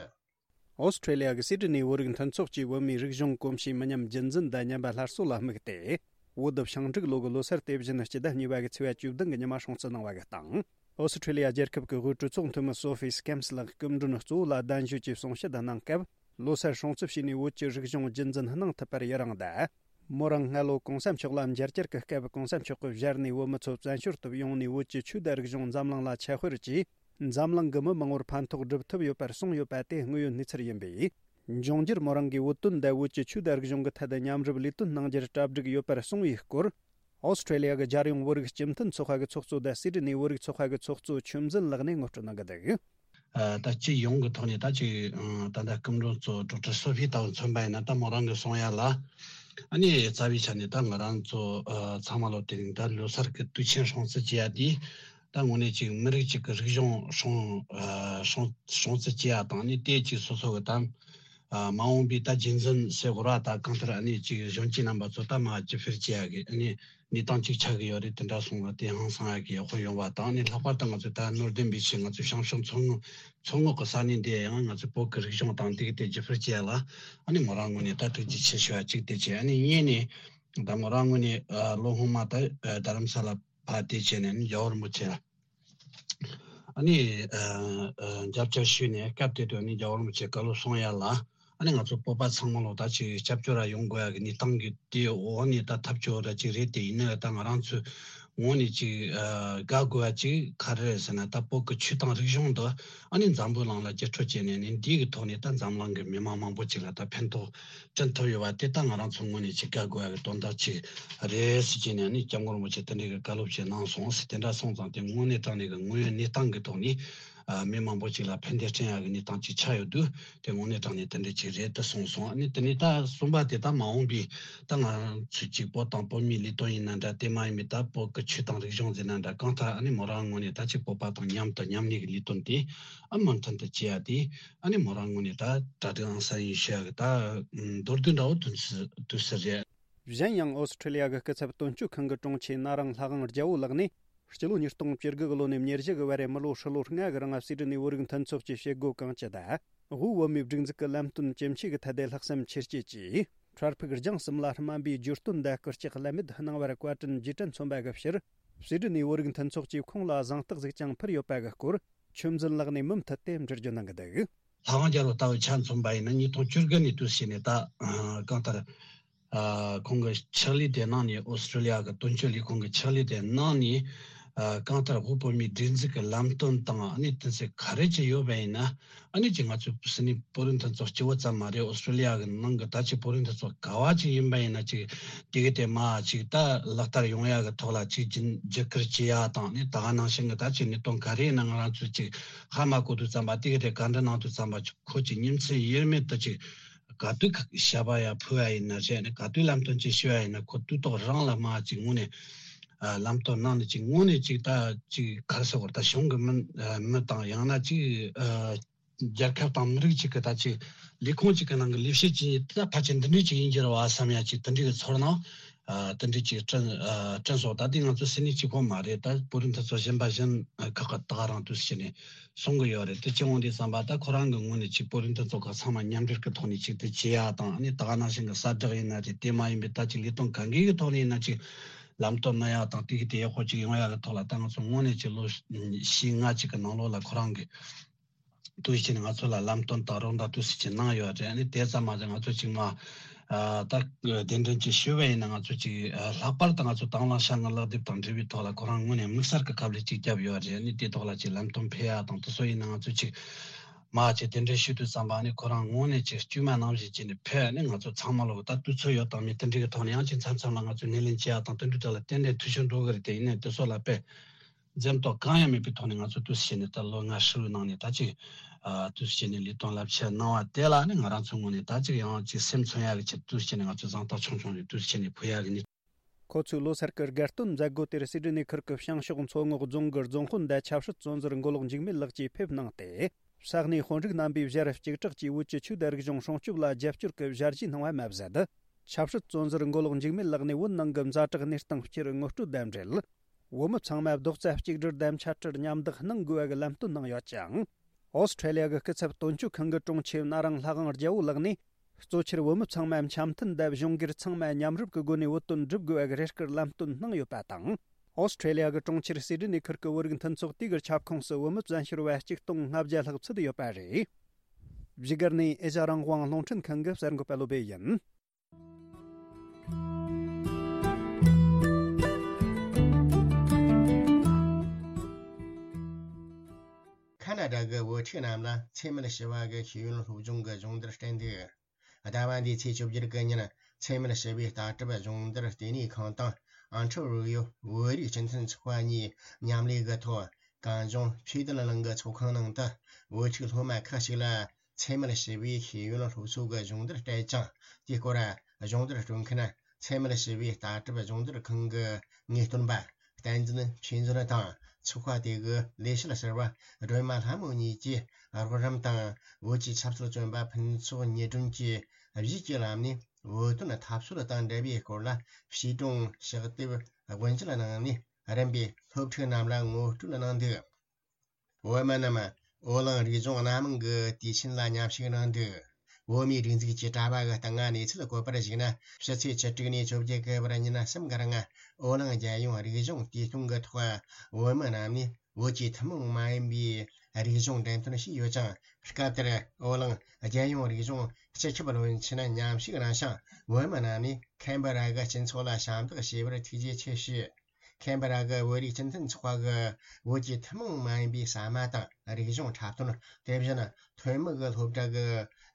ཨོ་སི་ཀྲི་ལི་ཡ་གི་སི་ཌི་ནི་བོད་རིགས་མཐུན་ཚོགས་ཀྱིས་བོད་མིའི་རིག་གཞུང་གོམས་གཤིས་མི་ཉམས་རྒྱུན་འཛིན་དང་ཉམས་པ་སླར་གསོ་ལ་དམིགས་ཏེ། བོད་བྱང་འབྲུག་ལོ་གི་ལོ་སར་དེ་བཞིན་སྤྱི་ཟླ་གཉིས་པ་གི་ཚེས་པ་བཅུ་བདུན་གི་ཉི་མ་སྲུང་བརྩི་གནང་བ་གི་སྟེང་། ཨོ་སི་ཀྲི་ལི་ཡ་རྒྱལ་ཁབ་ཀྱི་དབུས་གྲོས་ཚོགས་འཐུས་མི་སོ་ཧྥི་སི་ཀེམ་སི་ལགས་སྐུ་མགྲོན་གཙོ་བོ་ལ་གདན་ཞུས་ཀྱིས་གསུང་བཤད་གནང་སྐབས། ལོ་སར་སྲུང་བརྩི་བྱས་ནས་བོད་ཀྱི་རིག་གཞུང་རྒྱུན་འཛིན་གནང་ཐུབ་པར་ཡི་རང་དང་། མོ་རང་སྔ་ལོ་གོང་ས་མཆོག་ལ་མཇལ་བཅར་གྱི་སྐབས་གོང་ས་མཆོག་གིས་ཞལ་ནས་བོད་མི་ཚོ་བཙན་བྱོལ་དུ་ཡོང་ནས་བོད་ཀྱི་ཆོས་དང་རིག་གཞུང་འཛམ་གླིང་ལ་ཁྱབ་སྤེལ་གྱིས། འཛམ་གླིང་གི་མི་མང་བོར་ཕན་ཐོགས་སྒྲུབ་ཐུབ་ཡོད་པར་གསུངས་ཡོད་པ་དེ་དངོས་ཡོད་གནས་ཚུལ་ཡིན་པས། འབྱུང་འགྱུར་མོ་རང་གིས་བོད་དོན་དང་བོད་ཀྱི་ཆོས་དང་རིག་གཞུང་གི་ཐད་དུ་མཉམ་རུབ་ལས་དོན་གནང་རྒྱུར་གྲ་སྒྲིག་ཡོད་པར་གསུངས་པའི་སྐོར། ཨོ་སི་ཀྲི་ལི་ཡ་གི་རྒྱལ་ཡོངས་བོད་རིགས་སྤྱི་མཐུན་ཚོགས་པ་གི་ཚོགས་གཙོ་དང་སི་ཌི་ནི་བོད་རིགས་ཚོགས་པ་གི་ཚོགས་གཙོ་ཆོས་འཛིན་ལགས་ནས་ངོ་སྤྲོད་གནང་གི་འདུག་ཨ། ད་སྤྱི་ཡོངས་ཀྱི་ཐོག་ནས་ད་ཅིག་ཨ། ད་ལྟ་སྐུ་མགྲོན་གཙོ་ཌོག་ཊར་སོ་ཕི་ལྟ་བུ་མཚོན་པ་ཡིན་ན། ད་མོ་རང་གི་གསུང་ཡ་ལ་ཨ་ནི་རྩ་བའི་ཆ་ནས་ད་ང་རང་ཚོ་ཨ། ཚང་མ་ལོ་དེ་རིང་ད་ལོ་སར་གྱི་དུས་ཆེན་སྲུང་བརྩི་བྱེད་ཡ་དེ། ད་དངོས་གནས་ཅིག་མི་རིགས་གཅིག་གི་རིག་གཞུང་སྲུང་ཨ། སྲུང་སྲུང་བརྩི་བྱེད་ཡ་དང་ནི་དེ་ཅིག་སོ་སོ་གི་ད་ཨ། མ་འོངས་པའི་ད་རྒྱུན་འཛིན་ཟེར་དགོས་ར། ད་གང་ལྟར་ཨ་ནི་ཅིག་གཞོན་སྐྱེས་རྣམ་པ་ཚོ་ད་མར་རྒྱུད་སྤེལ་བྱེད་ཡ་གི་ཨ་ནི་གནས་སྟངས་ཅིག་ཆགས་ཀྱི་ཡོད་རེད། དེ་འདྲ་སོང་ན་དེ་ཧང་སང་ཡ་གི་ཡག་པོ་ཡོང་བ་དང་ནི། ལྷག་པར་དུ་ང་ཚོ་ད་ནོར་ལྡན་པའི་ཆེད་ང་ཚོ་བྱང་ཕྱོགས་མཚོ་སྔོན་མཚོ་སྔོན་གྱི་ས་གནས་འདི་ཡང་ང་ཚོ་བོད་ཀྱི་རིག་གཞུང་དང་དེ་གི་དེ་རྒྱུད་སྤེལ་བྱེད་ཡ་ལ་ཨ་ནི་མོ་རང་ངོས་ནས་ད་ཐུགས་རྗེ་ཆེ་ཞུ་བ་གཅིག་དེ་བྱས། ཨ་ནི་གཉིས་ནས་ ད་མོ་རང་ངོས་ནས་ཨ་ལོ་སྔོན་མ་ད་ཨ་རྡ་རམ་ས་ལ་ཕར་དེ་བྱས་ནས་ནི་རྒྱལ་བ་རིན་པོ་ཆེ་ལ་ཨ་ནི་ཨ་ཨ་མཇལ་བཅར་ཞུས་ནས། སྐབས་དེ་དུས་ནི་རྒྱལ་བ་རིན་པོ་ཆེ་བཀའ་སློབ་གསུང་ཡ་ལ། ཨ་ནི་ང་ཚོ་བོད་པ་ཚང་མ་ལོ་ད་ཅིག་སྐྱབས་བཅོལ་ར་ཡོང་དགོས་ཡ་གི་གནས་སྟངས་ཀྱི་དེའི་འོག་ནས་ད་ཐབས་སྐྱོ་ར་ཅིག་རེད། དེ་ཡིན་ན་ད་ང་རང་ཚོའི་ངོས་ནས་ཅིག་ཨ་དགའ་དགོས་ཡ་ཅིག་ག་རེ་རེད་ཟེར་ན། ད་བོད་ཀྱི་ཆོས་དང་རིག་གཞུང་འདི་ཨ་ནི་འཛམ་བུ་གླིང་ལ་བརྒྱུད་སྤྲོད་བྱས་ནས་ནི་འདི་གི་ཐོག་ནས་ད་འཛམ་གླིང་གི་མི་མང་མང་པོ་ཅིག་ལ་ད་ཕན་ཐོགས་བསྐྲུན་ཐུབ་ཡོད་པ་དེ་ད་ང་རང་ཚོའི་ངོས་ནས་ཅིག་དགའ་དགོས་ཡ་གི་དོན་དག་ཅིག་རེད་ཟེར་གྱི་ནས་ནི་སྐྱབས་མགོན་རིན་པོ་ཆེ་དེ་འདྲའི་གི་བཀའ་སློབ་ཅིག་གནང་སོང་ཟེར། དེ་འདྲ་སོང་ཙང་དེ་དངོས་གནས་དྲང་གནས་གི་དངོས་ཡོད་གནས་སྟངས་གི་ཐོག་ནས་ཨ་མི་མང་པོ་ཅིག་ལ་ཕན་བདེ་བསྐྲུན་ཡག་གི་གནས་སྟངས་ཅིག་ཆགས་ཡོད་དུས། དེ་དངོས་གནས་དྲང་གནས་དེ་འདྲ་ཅིག་རེད་དུ་སོང་སོང་། ཨ་ནི་དེ་ནས་ད་གསུམ་པ་དེ་ད་མ་འོངས་པའི་ད་ང་ཚོས་ཅིག་བོད་དང་བོད་མིའི་ལས་དོན་ཡིན་ན་འདྲ། དེ་མ་ཡིན་པའི་ད་བོད་ཀྱི་ཆོས་དང་རིག་གཞུང་ཟེར་ན་འདྲ། གང་ལྟར་ཨ་ནི་མོ་རང་ངོས་ནས་ད་ཅིག་བོད་པ་དང་མཉམ་དུ་མཉམ་གནས་ཀྱི་ལས་དོན་དེ་ཨ་མུ་མཐུད་དུ་བྱེད་ཡ་དེ་ཨ་ནི་མོ་རང་ངོས་ནས་ད་གྲ་སྒྲིག་ཨང་གསར་ཡིན་ཞུ་ཡ་གི་ད་མདོར་བསྡུས་འདྲ་བོ་དུ་དུ་ཟེར་རེད། གཞན་ཡང་ཨོ་སི་ཁྲི་ལི་ཡ་གི་སྐུ་ཚབ་དོན་གཅོད་ཁང་གི་དྲུང་ཆེ་ན་རང་ལྷ་དབང་རྒྱལ་བོ་ལགས་ནས། སྤྱི་ལོ་ཉིས་སྟོང་བཅུ་དགུ་གི་ལོ་ནས་ཉེར་བཞི་གི་བར་རེ་མི་ལོ་ཧྲིལ་ལོ་ལྔ་གི་རིང་སྲིད་གྲོས་ནས་བོད་རིགས་མཐུན་ཚོགས་ཀྱི་བྱེད་སྒོ་གང་ཅི་དང་། དབུས་བོད་མིའི་སྒྲིག་འཛུགས་ཀྱི་ལམ་སྟོན་ཇི་མཆིས་ཀྱི་ཐད་དེ་ལྷག་བསམ་ཆེར་བསྐྱེད་ཀྱིས། འཕྲལ་ཕུགས་རྒྱང་གསུམ་ལ་སྨན་པའི་བརྗོད་དོན་དང་སྐུལ་ལྕག་ཀླད་མེད་གནང་བར་བཀའ་དྲིན་རྗེས་དྲན་མཚོན་པ་གི་ཕྱིར། སྲིད་གྲོས་ནས་བོད་རིགས་མཐུན་ཚོགས་ཀྱིས་ཁོང་ལ་གཟེངས་རྟགས་ཟིག་ཀྱང་ཕུལ་ཡོད་པ་གི་སྐོར། ཆོས་འཛིན་ལགས་ནས་མུ་མཐུད་དེ་འགྲེལ་བརྗོད་གནང་གི་འདུག་ལྷ་དབང་རྒྱལ་བོ་ལྟ་བུ་ཆ་མཚོན་པ་ཡིན་ན། ཉིས་སྟོང་བཅུ་དགུ་ནས་དུས་ཕྱིན་ནས་ད་གང་ལྟར། ཨ་ཁོང་གི་ཕྱག་ལས་དེ་གནང་ནས། ཨོ་སི་ཀྲི་ལི་ཡ་གི་དོན་གཅོད་ལས་ཁུངས་ཀྱི་ཕྱག་ལས་དེ་གནང་ནས། ཨ་གང་ལྟར་དབུས་བོད་མིའི་སྒྲིག་འཛུགས་ཀྱི་ལམ་སྟོན་དང་ཨ་ནི་དོན་ཚན་ག་རེ་ཅིག་ཡོད་པ་ཡིན་ན། ཨ་ནི་ཅིག་ང་ཚོ་སྲིད་ནི་བོད་རིགས་མཐུན་ཚོགས་སྤྱི་བོ་ཙམ་མ་རེད། ཨོ་སི་ཀྲི་ལི་ཡ་གི་ནང་གི་ད་ཅིག་བོད་རིགས་མཐུན་ཚོགས་ག་བ་ཅིག་ཡིན་པ་ཡིན་ན། ཅིག་དེ་གི་དེ་མ་ཅིག་ད་ལག་བསྟར་ཡོང་ཡ་གི་ཐོག་ལ་ཅིག་རྒྱུན་རྒྱུད་སྐུལ་བྱེད་ཡ་དང་། ཨ་ནི་ད་ག་ནང་བཞིན་གི་ད་ཅིག་གནད་དོན་ག་རེ་ཡིན་ན། ང་རང་ཚོས་ཅིག་ཧ་མ་གོ་དུས་ཙམ་པ། དེ་གི་དེ་བཀའ་འདྲི་གནང་དུས་ཙམ་པ། ཁོ་ཅིག་ཉིན་མཚན་དབྱེར་མེད་དུ་ཅིག་ག་དུས་ཞབས་པ་ཡ་ཕུལ་བ་ཡིན་ན་རེད། ནི་ག་དུས་ལམ་སྟོན་ཅིག་ཞུ་བ་ཡིན་ན། ཁོ་དུས་ཐོག་རང་ལ་མ་ཅིག་དངོས་གནས་ཨ་ལམ་སྟོན་གནང་ནས། ཅིག་དངོས་གནས་ཅིག་ད་ཅིག་ག་རེ་ཟེར་དགོས་རེད། ད་གཞུང་གི་མི་ཨ་མི་དང་། ཡང་ན་ཅིག་ཨ་རྒྱལ་ཁབ་དང་མི་རིགས་ཅིག་གི་ད་ཅིག་ལས་ཁུངས་ཅིག་གི་ནང་གི་ལས་བྱེད་ཅིག་ད་ཕལ་ཆེར་འདི་འདྲས་ཅིག་ཡིན་གྱི་རེད་བ་བསམ་ཡ་ཅིག་དེ་འདྲས་ཀྱི་ཚོར་སྣང་། ཨ་དེ་འདྲས་ཅིག་བསྐྲུན་ཨ་བསྐྲུན་སོང་། ད་དེ་ང་ཚོ་སྲིད་ནི་གཅིག་པོ་མ་རེད། ད་བོད་རིགས་མཐུན་ཚོགས་གཞན་པ་གཞན་ཨ་ཁག་གི་ད་ག་རང་དུས་ཕྱིན་ནས་གསུང་གི་ཡོད་རེད། དེ་ཅི་འོང་དུས་ཙམ་པ། ད་ཁོ་རང་གི་ངོས་ནས་ཅིག་བོད་རིགས་མཐུན་ཚོགས་ཁག་ཚང་མ་མཉམ་འབྲེལ་གྱི་ཐོག་ནས་ཅིག་དེ་བྱེད་ཡ་དང་། ཨ་ནི་ད་ག་ནང་བཞིན་གྱི་གསལ་བསྒྲགས་ཡིན་ན་རེད། དེ་མ་ཡིན་པའི་ད་ཅིག་ལས་དོན་གང་གི་གི་ཐོག་ནས་ཡིན་ན་ཅིག་ལམ་སྟོན་གནང་ཡ་དང་། དེ་གི་དེ་ཡག་པོ་ཅིག་ཡོང་ཡ་གི་ཐོག་ལ། ད་ང་ཚོ་དངོས་གནས་ཅིག་ལོ་བཞི་ལྔ་ཅིག་གི་ནང་ལོགས་ལ་ཁོ་རང་གི་དུས་ཕྱིན་ནས་ང་ཚོ་ལ་ལམ་སྟོན་དང་རོགས་ཟླ་དུས་ཕྱིན་གནང་ཡོད་རེད། ཨ་ནི་དེ་ཙམ་མ་ཟད་ང་ཚོ་ཅིག་མ་ཨ་ད་གདན་འདྲེན་ཅིག་ཞུས་པ་ཡིན་ན། ང་ཚོ་ཅིག་ཨ་ལྷག་པར་དུ་ང་ཚོ་དང་བླངས་བྱ་དངོས་ལག་དེབ་དང་འབྲེལ་བའི་ཐོག་ལ་ཁོ་རང་ངོས་ནས་དམིགས་བསལ་གྱི་ཁ་ལས་ཅིག་བརྒྱབ་ཡོད་རེད། ཨ་ནི་དེ་ཐོག་ལ་ཅིག་ལམ་སྟོན་ཕེབས་ཡ་དང་། དེ་ཚོ་ཡིན་ན་ང་ཚོ་ཅིག་མ་ཅིག་གདན་འདྲེན་ཞུ་དུས་ཙམ་པ། ཨ་ནི་ཁོ་རང་ངོས་ནས་ཅིག་དཀྱུས་མ་ནང་བཞིན་བྱས་ནས་ཕེབས། ཨ་ནི་ང་ཚོ་ཚང་མ་ལོ་ད་དུས་ཚོད་ཡོད་དང་མེད་དེ་འདྲའི་གི་ཐོག་ནས་ཡང་ཅིག་མཚམས་མཚམས་ལ་ང་ཚོ་སྣེ་ལེན་བྱེད་ཡ་དང་། དེ་འདྲའི་ཐོག་ལ་ཏན་ཏན་འཐུས་ཤོར་འགྲོ་གི་རེད། དེ་ཡིན་ནའི་དེ་ཚོ་ལ་དཔེ་འཛེམ་དོགས་གང་ཡང་མེད་པའི་ཐོག་ནས་ང་ཚོ་དུས་ཕྱིན་ནས་ད་ལོ་ལྔ་ཧྲིལ་བོའི་ནང་ནས་ད་ཅིག་ཨ་དུས་ཕྱིན་ནས་ལས་དོན་རླབས་ཆེན་གནང་བ་དེ་ལ་ནི་ང་རང་ཚོའི་ངོས་ནས་ད་ཅིག་ཡང་ཅིག་སེམས་མཚོན་ཡག་གི་ཆེད་དུ་དུས་ཕྱིན་ནས་ང་ཚོས་གཟེངས་རྟགས་ཆུང་ཆུང་ཞིག་དུས་ཕྱིན་ནས་ཕུལ་ཡག་གི་ནི། ཁོ་ཚོའི་ལོ་སར་གྱི་དགའ་སྟོན་མཛད་སྒོ་དེར་སྲིད་གྲོས་ནས་ཁུལ་གྱི་བྱང་ཕྱོགས་མཚོ་ངོགས་རྫོང་གི་རྫོང་དཔོན་དང་ཆབ་སྲིད་བཙོན་ཟུར་མགོ་ལོག་འཇིགས་མེད་ལགས་ཀྱིས་ཕེབས་གནང་སྟེ། ས་གནས་དཔོན་རིགས་རྣམ་པས་ཞལ་གཅིག་གྲགས་ཀྱིས་བོད་ཀྱི་ཆོས་དང་རིག་གཞུང་སྲུང་སྐྱོབ་ལ་རྒྱབ་སྐྱོར་གྱི་ཞལ་བཞེས་གནང་བ་མ་ཟད། ཆབ་སྲིད་བཙོན་ཟུར་མགོ་ལོག་འཇིགས་མེད་ལགས་ནས་བོད་ནང་གི་ཛ་དྲག་གནས་སྟངས་སྤྱིར་ངོ་སྤྲོད་དང་འབྲེལ། བོད་མི་ཚང་མ་རྡོག་རྩ་གཅིག་སྒྲིལ་དང་འཆད་ཁྲིད་མཉམ་འདེགས་གནང་དགོས་པ་གི་ལམ་སྟོན་གནང་ཡོད་ཅིང་། ཨོ་སི་ཁྲེ་ལི་ཡ་གི་སྐུ་ཚབ་དོན་གཅོད་ཁང་གི་དྲུང་ཆེ་ན་རང་ལྷ་དབང་རྒྱལ་བོ་ལགས་ནས། གཙོ་ཆེར་བོད་མི་ཚང་མ་འཆམ་མཐུན་དང་གཞུང་སྒེར་ཚང་མ་མཉམ་རུབ་ཀྱི་སྒོ་ནས་བོད་དོན་སྒྲུབ་དགོས་པ་གི་རེ་སྐུལ་ལམ་སྟོན་གནང་ཡོད་པ་དང་། ཨོ་སི་ཁྲེ་ལི་ཡ་གི་གྲོང་ཁྱེར་སིད་ནི་ཁུལ་གྱི་བོད་རིགས་མཐུན་ཚོགས་དེ་གི་ཁྱབ་ཁོངས་སུ་བོད་མི་བཙན་བྱོལ་བ་གཅིག་སྟོང་ལྔ་བརྒྱ་ལྷག་ཚུད་ཡོད་པ་རེད། བཞུགས་སྒར་ནས་ཨེ་ཤ་རང་དབང་རླུང་འཕྲིན་ཁང་གི་གསར་འགོད་པ་བློ་བྷེ་ཡིན། ཁ་ན་ཌ་གི་བུ་ཕྲུག་རྣམས་ལ་འཚེ་མེད་ཞི་བ་གི་ཤེས་ཡོན་སློབ་སྦྱོང་གི་སྦྱོང་བརྡར་སྤྲད་འདུག་ཟླ་བ་འདིའི་ཚེས་བཅུ་བརྒྱད་གི་ཉིན་འཚེ་མེད་ཞི་བའི་ལྟ་གྲུབ་སྦྱོང་བརྡར་ལྟེ་གནས་ཁང་དང་ཨན་ཁྲི་རུ་ཡོ་བོད་རིགས་སྤྱི་མཐུན་ཚོགས་པ་གཉིས་མཉམ་ལས་ཀྱི་ཐོག་གངས་ལྗོངས་ཆོས་དད་གླིང་གི་ཚོགས་ཁང་ནང་དུ་བོད་ཕྲུག་སློབ་མ་ཁག་ཅིག་ལ་འཚེ་མེད་ཞི་བའི་ཤེས་ཡོན་སློབ་གསོ་གི་སྦྱོང་བརྡར་སྤྲད་ཅིང་། དེའི་སྐོར་སྦྱོང་བརྡར་སྤྲོད་མཁན་འཚེ་མེད་ཞི་བའི་ལྟ་གྲུབ་སྦྱོང་བརྡར་ཁང་གི་ངེས་སྟོན་པ་བསྟན་འཛིན་ཆོས་འཛིན་དང་ཚོགས་པ་དེ་གི་ལས་བྱེད་ཟུར་པ་སྒྲོལ་མ་ལྷ་མོ་གཉིས་ཀྱིས་རོགས་རམ་དང་བོད་ཀྱི་ཆབ་སྲིད་བཙོན་པ་ཕུན་ཚོགས་ཉི་སྒྲོན་གྱིས་གཞས་ཀྱི་ལམ་ནས་བོད་དོན་འཐབ་རྩོད་དང་འབྲེལ་བའི་སྐོར་ལ་བྱིས་སྒྲུང་ཕྱག་དེབ་དབུ་འབྱེད་གནང་ནས་རིམ་པས་སློབ་ཕྲུག་རྣམས་ལ་ངོ་སྤྲོད་གནང་འདུག་བོད་མི་རྣམས་བོད་གླིང་རིག་གཞུང་སྣ་མང་གི་དུས་ཆེན་ལ་མཉམ་ཞུགས་གནང་འདུག་བོད་མིའི་སྒྲིག་འཛུགས་ཀྱི་དྲ་བ་གི་སྟེང་ང་གནས་ཚུལ་བཀོད་པར་གཞིགས་ན། ཕྱི་ཚེས་བཅུ་དྲུག་ནས་བཅོ་བརྒྱད་གི་བར་ཉིན་གསུམ་གི་རིང་། འོ་གླིང་རྒྱལ་ཡོངས་རིག་གཞུང་དུས་སྟོན་གི་ཐོག་བོད་མི་རྣམས་ནས་བོད་ཀྱི་ཐུན་མོང་མ་ཡིན་པའི་རིག་གཞུང་འགྲེམས་སྟོན་བྱས་ཡོད་ཅིང་། སྐབས་དེར་འོ་གླིང་རྒྱལ་ཡོངས་རིག་གཞུང་སྤྱི་ཁྱབ་བློན་ཆེན་མཉམ་ཞུགས་གནང་ཞིང་། བོད་མི་རྣམས་ནས་ཁེན་བྷ་ར་གི་སྤྱི་ཚོགས་ལ་ཞབས་འདེགས་ཞུས་པར་ཐུགས་རྗེ་ཆེ་ཞུས། ཁེན་བྷ་ར་གི་བོད་རིགས་སྤྱི་མཐུན་ཚོགས་པ་གི་བོད་ཀྱི་ཐུན་མོང་མ་ཡིན་པའི་ཟ་མ་དང་རིག་གཞུང་འཁྲབ་སྟོན། དེ་བཞིན་ཐོན་མི་གི་སློབ་གྲྭ་གི་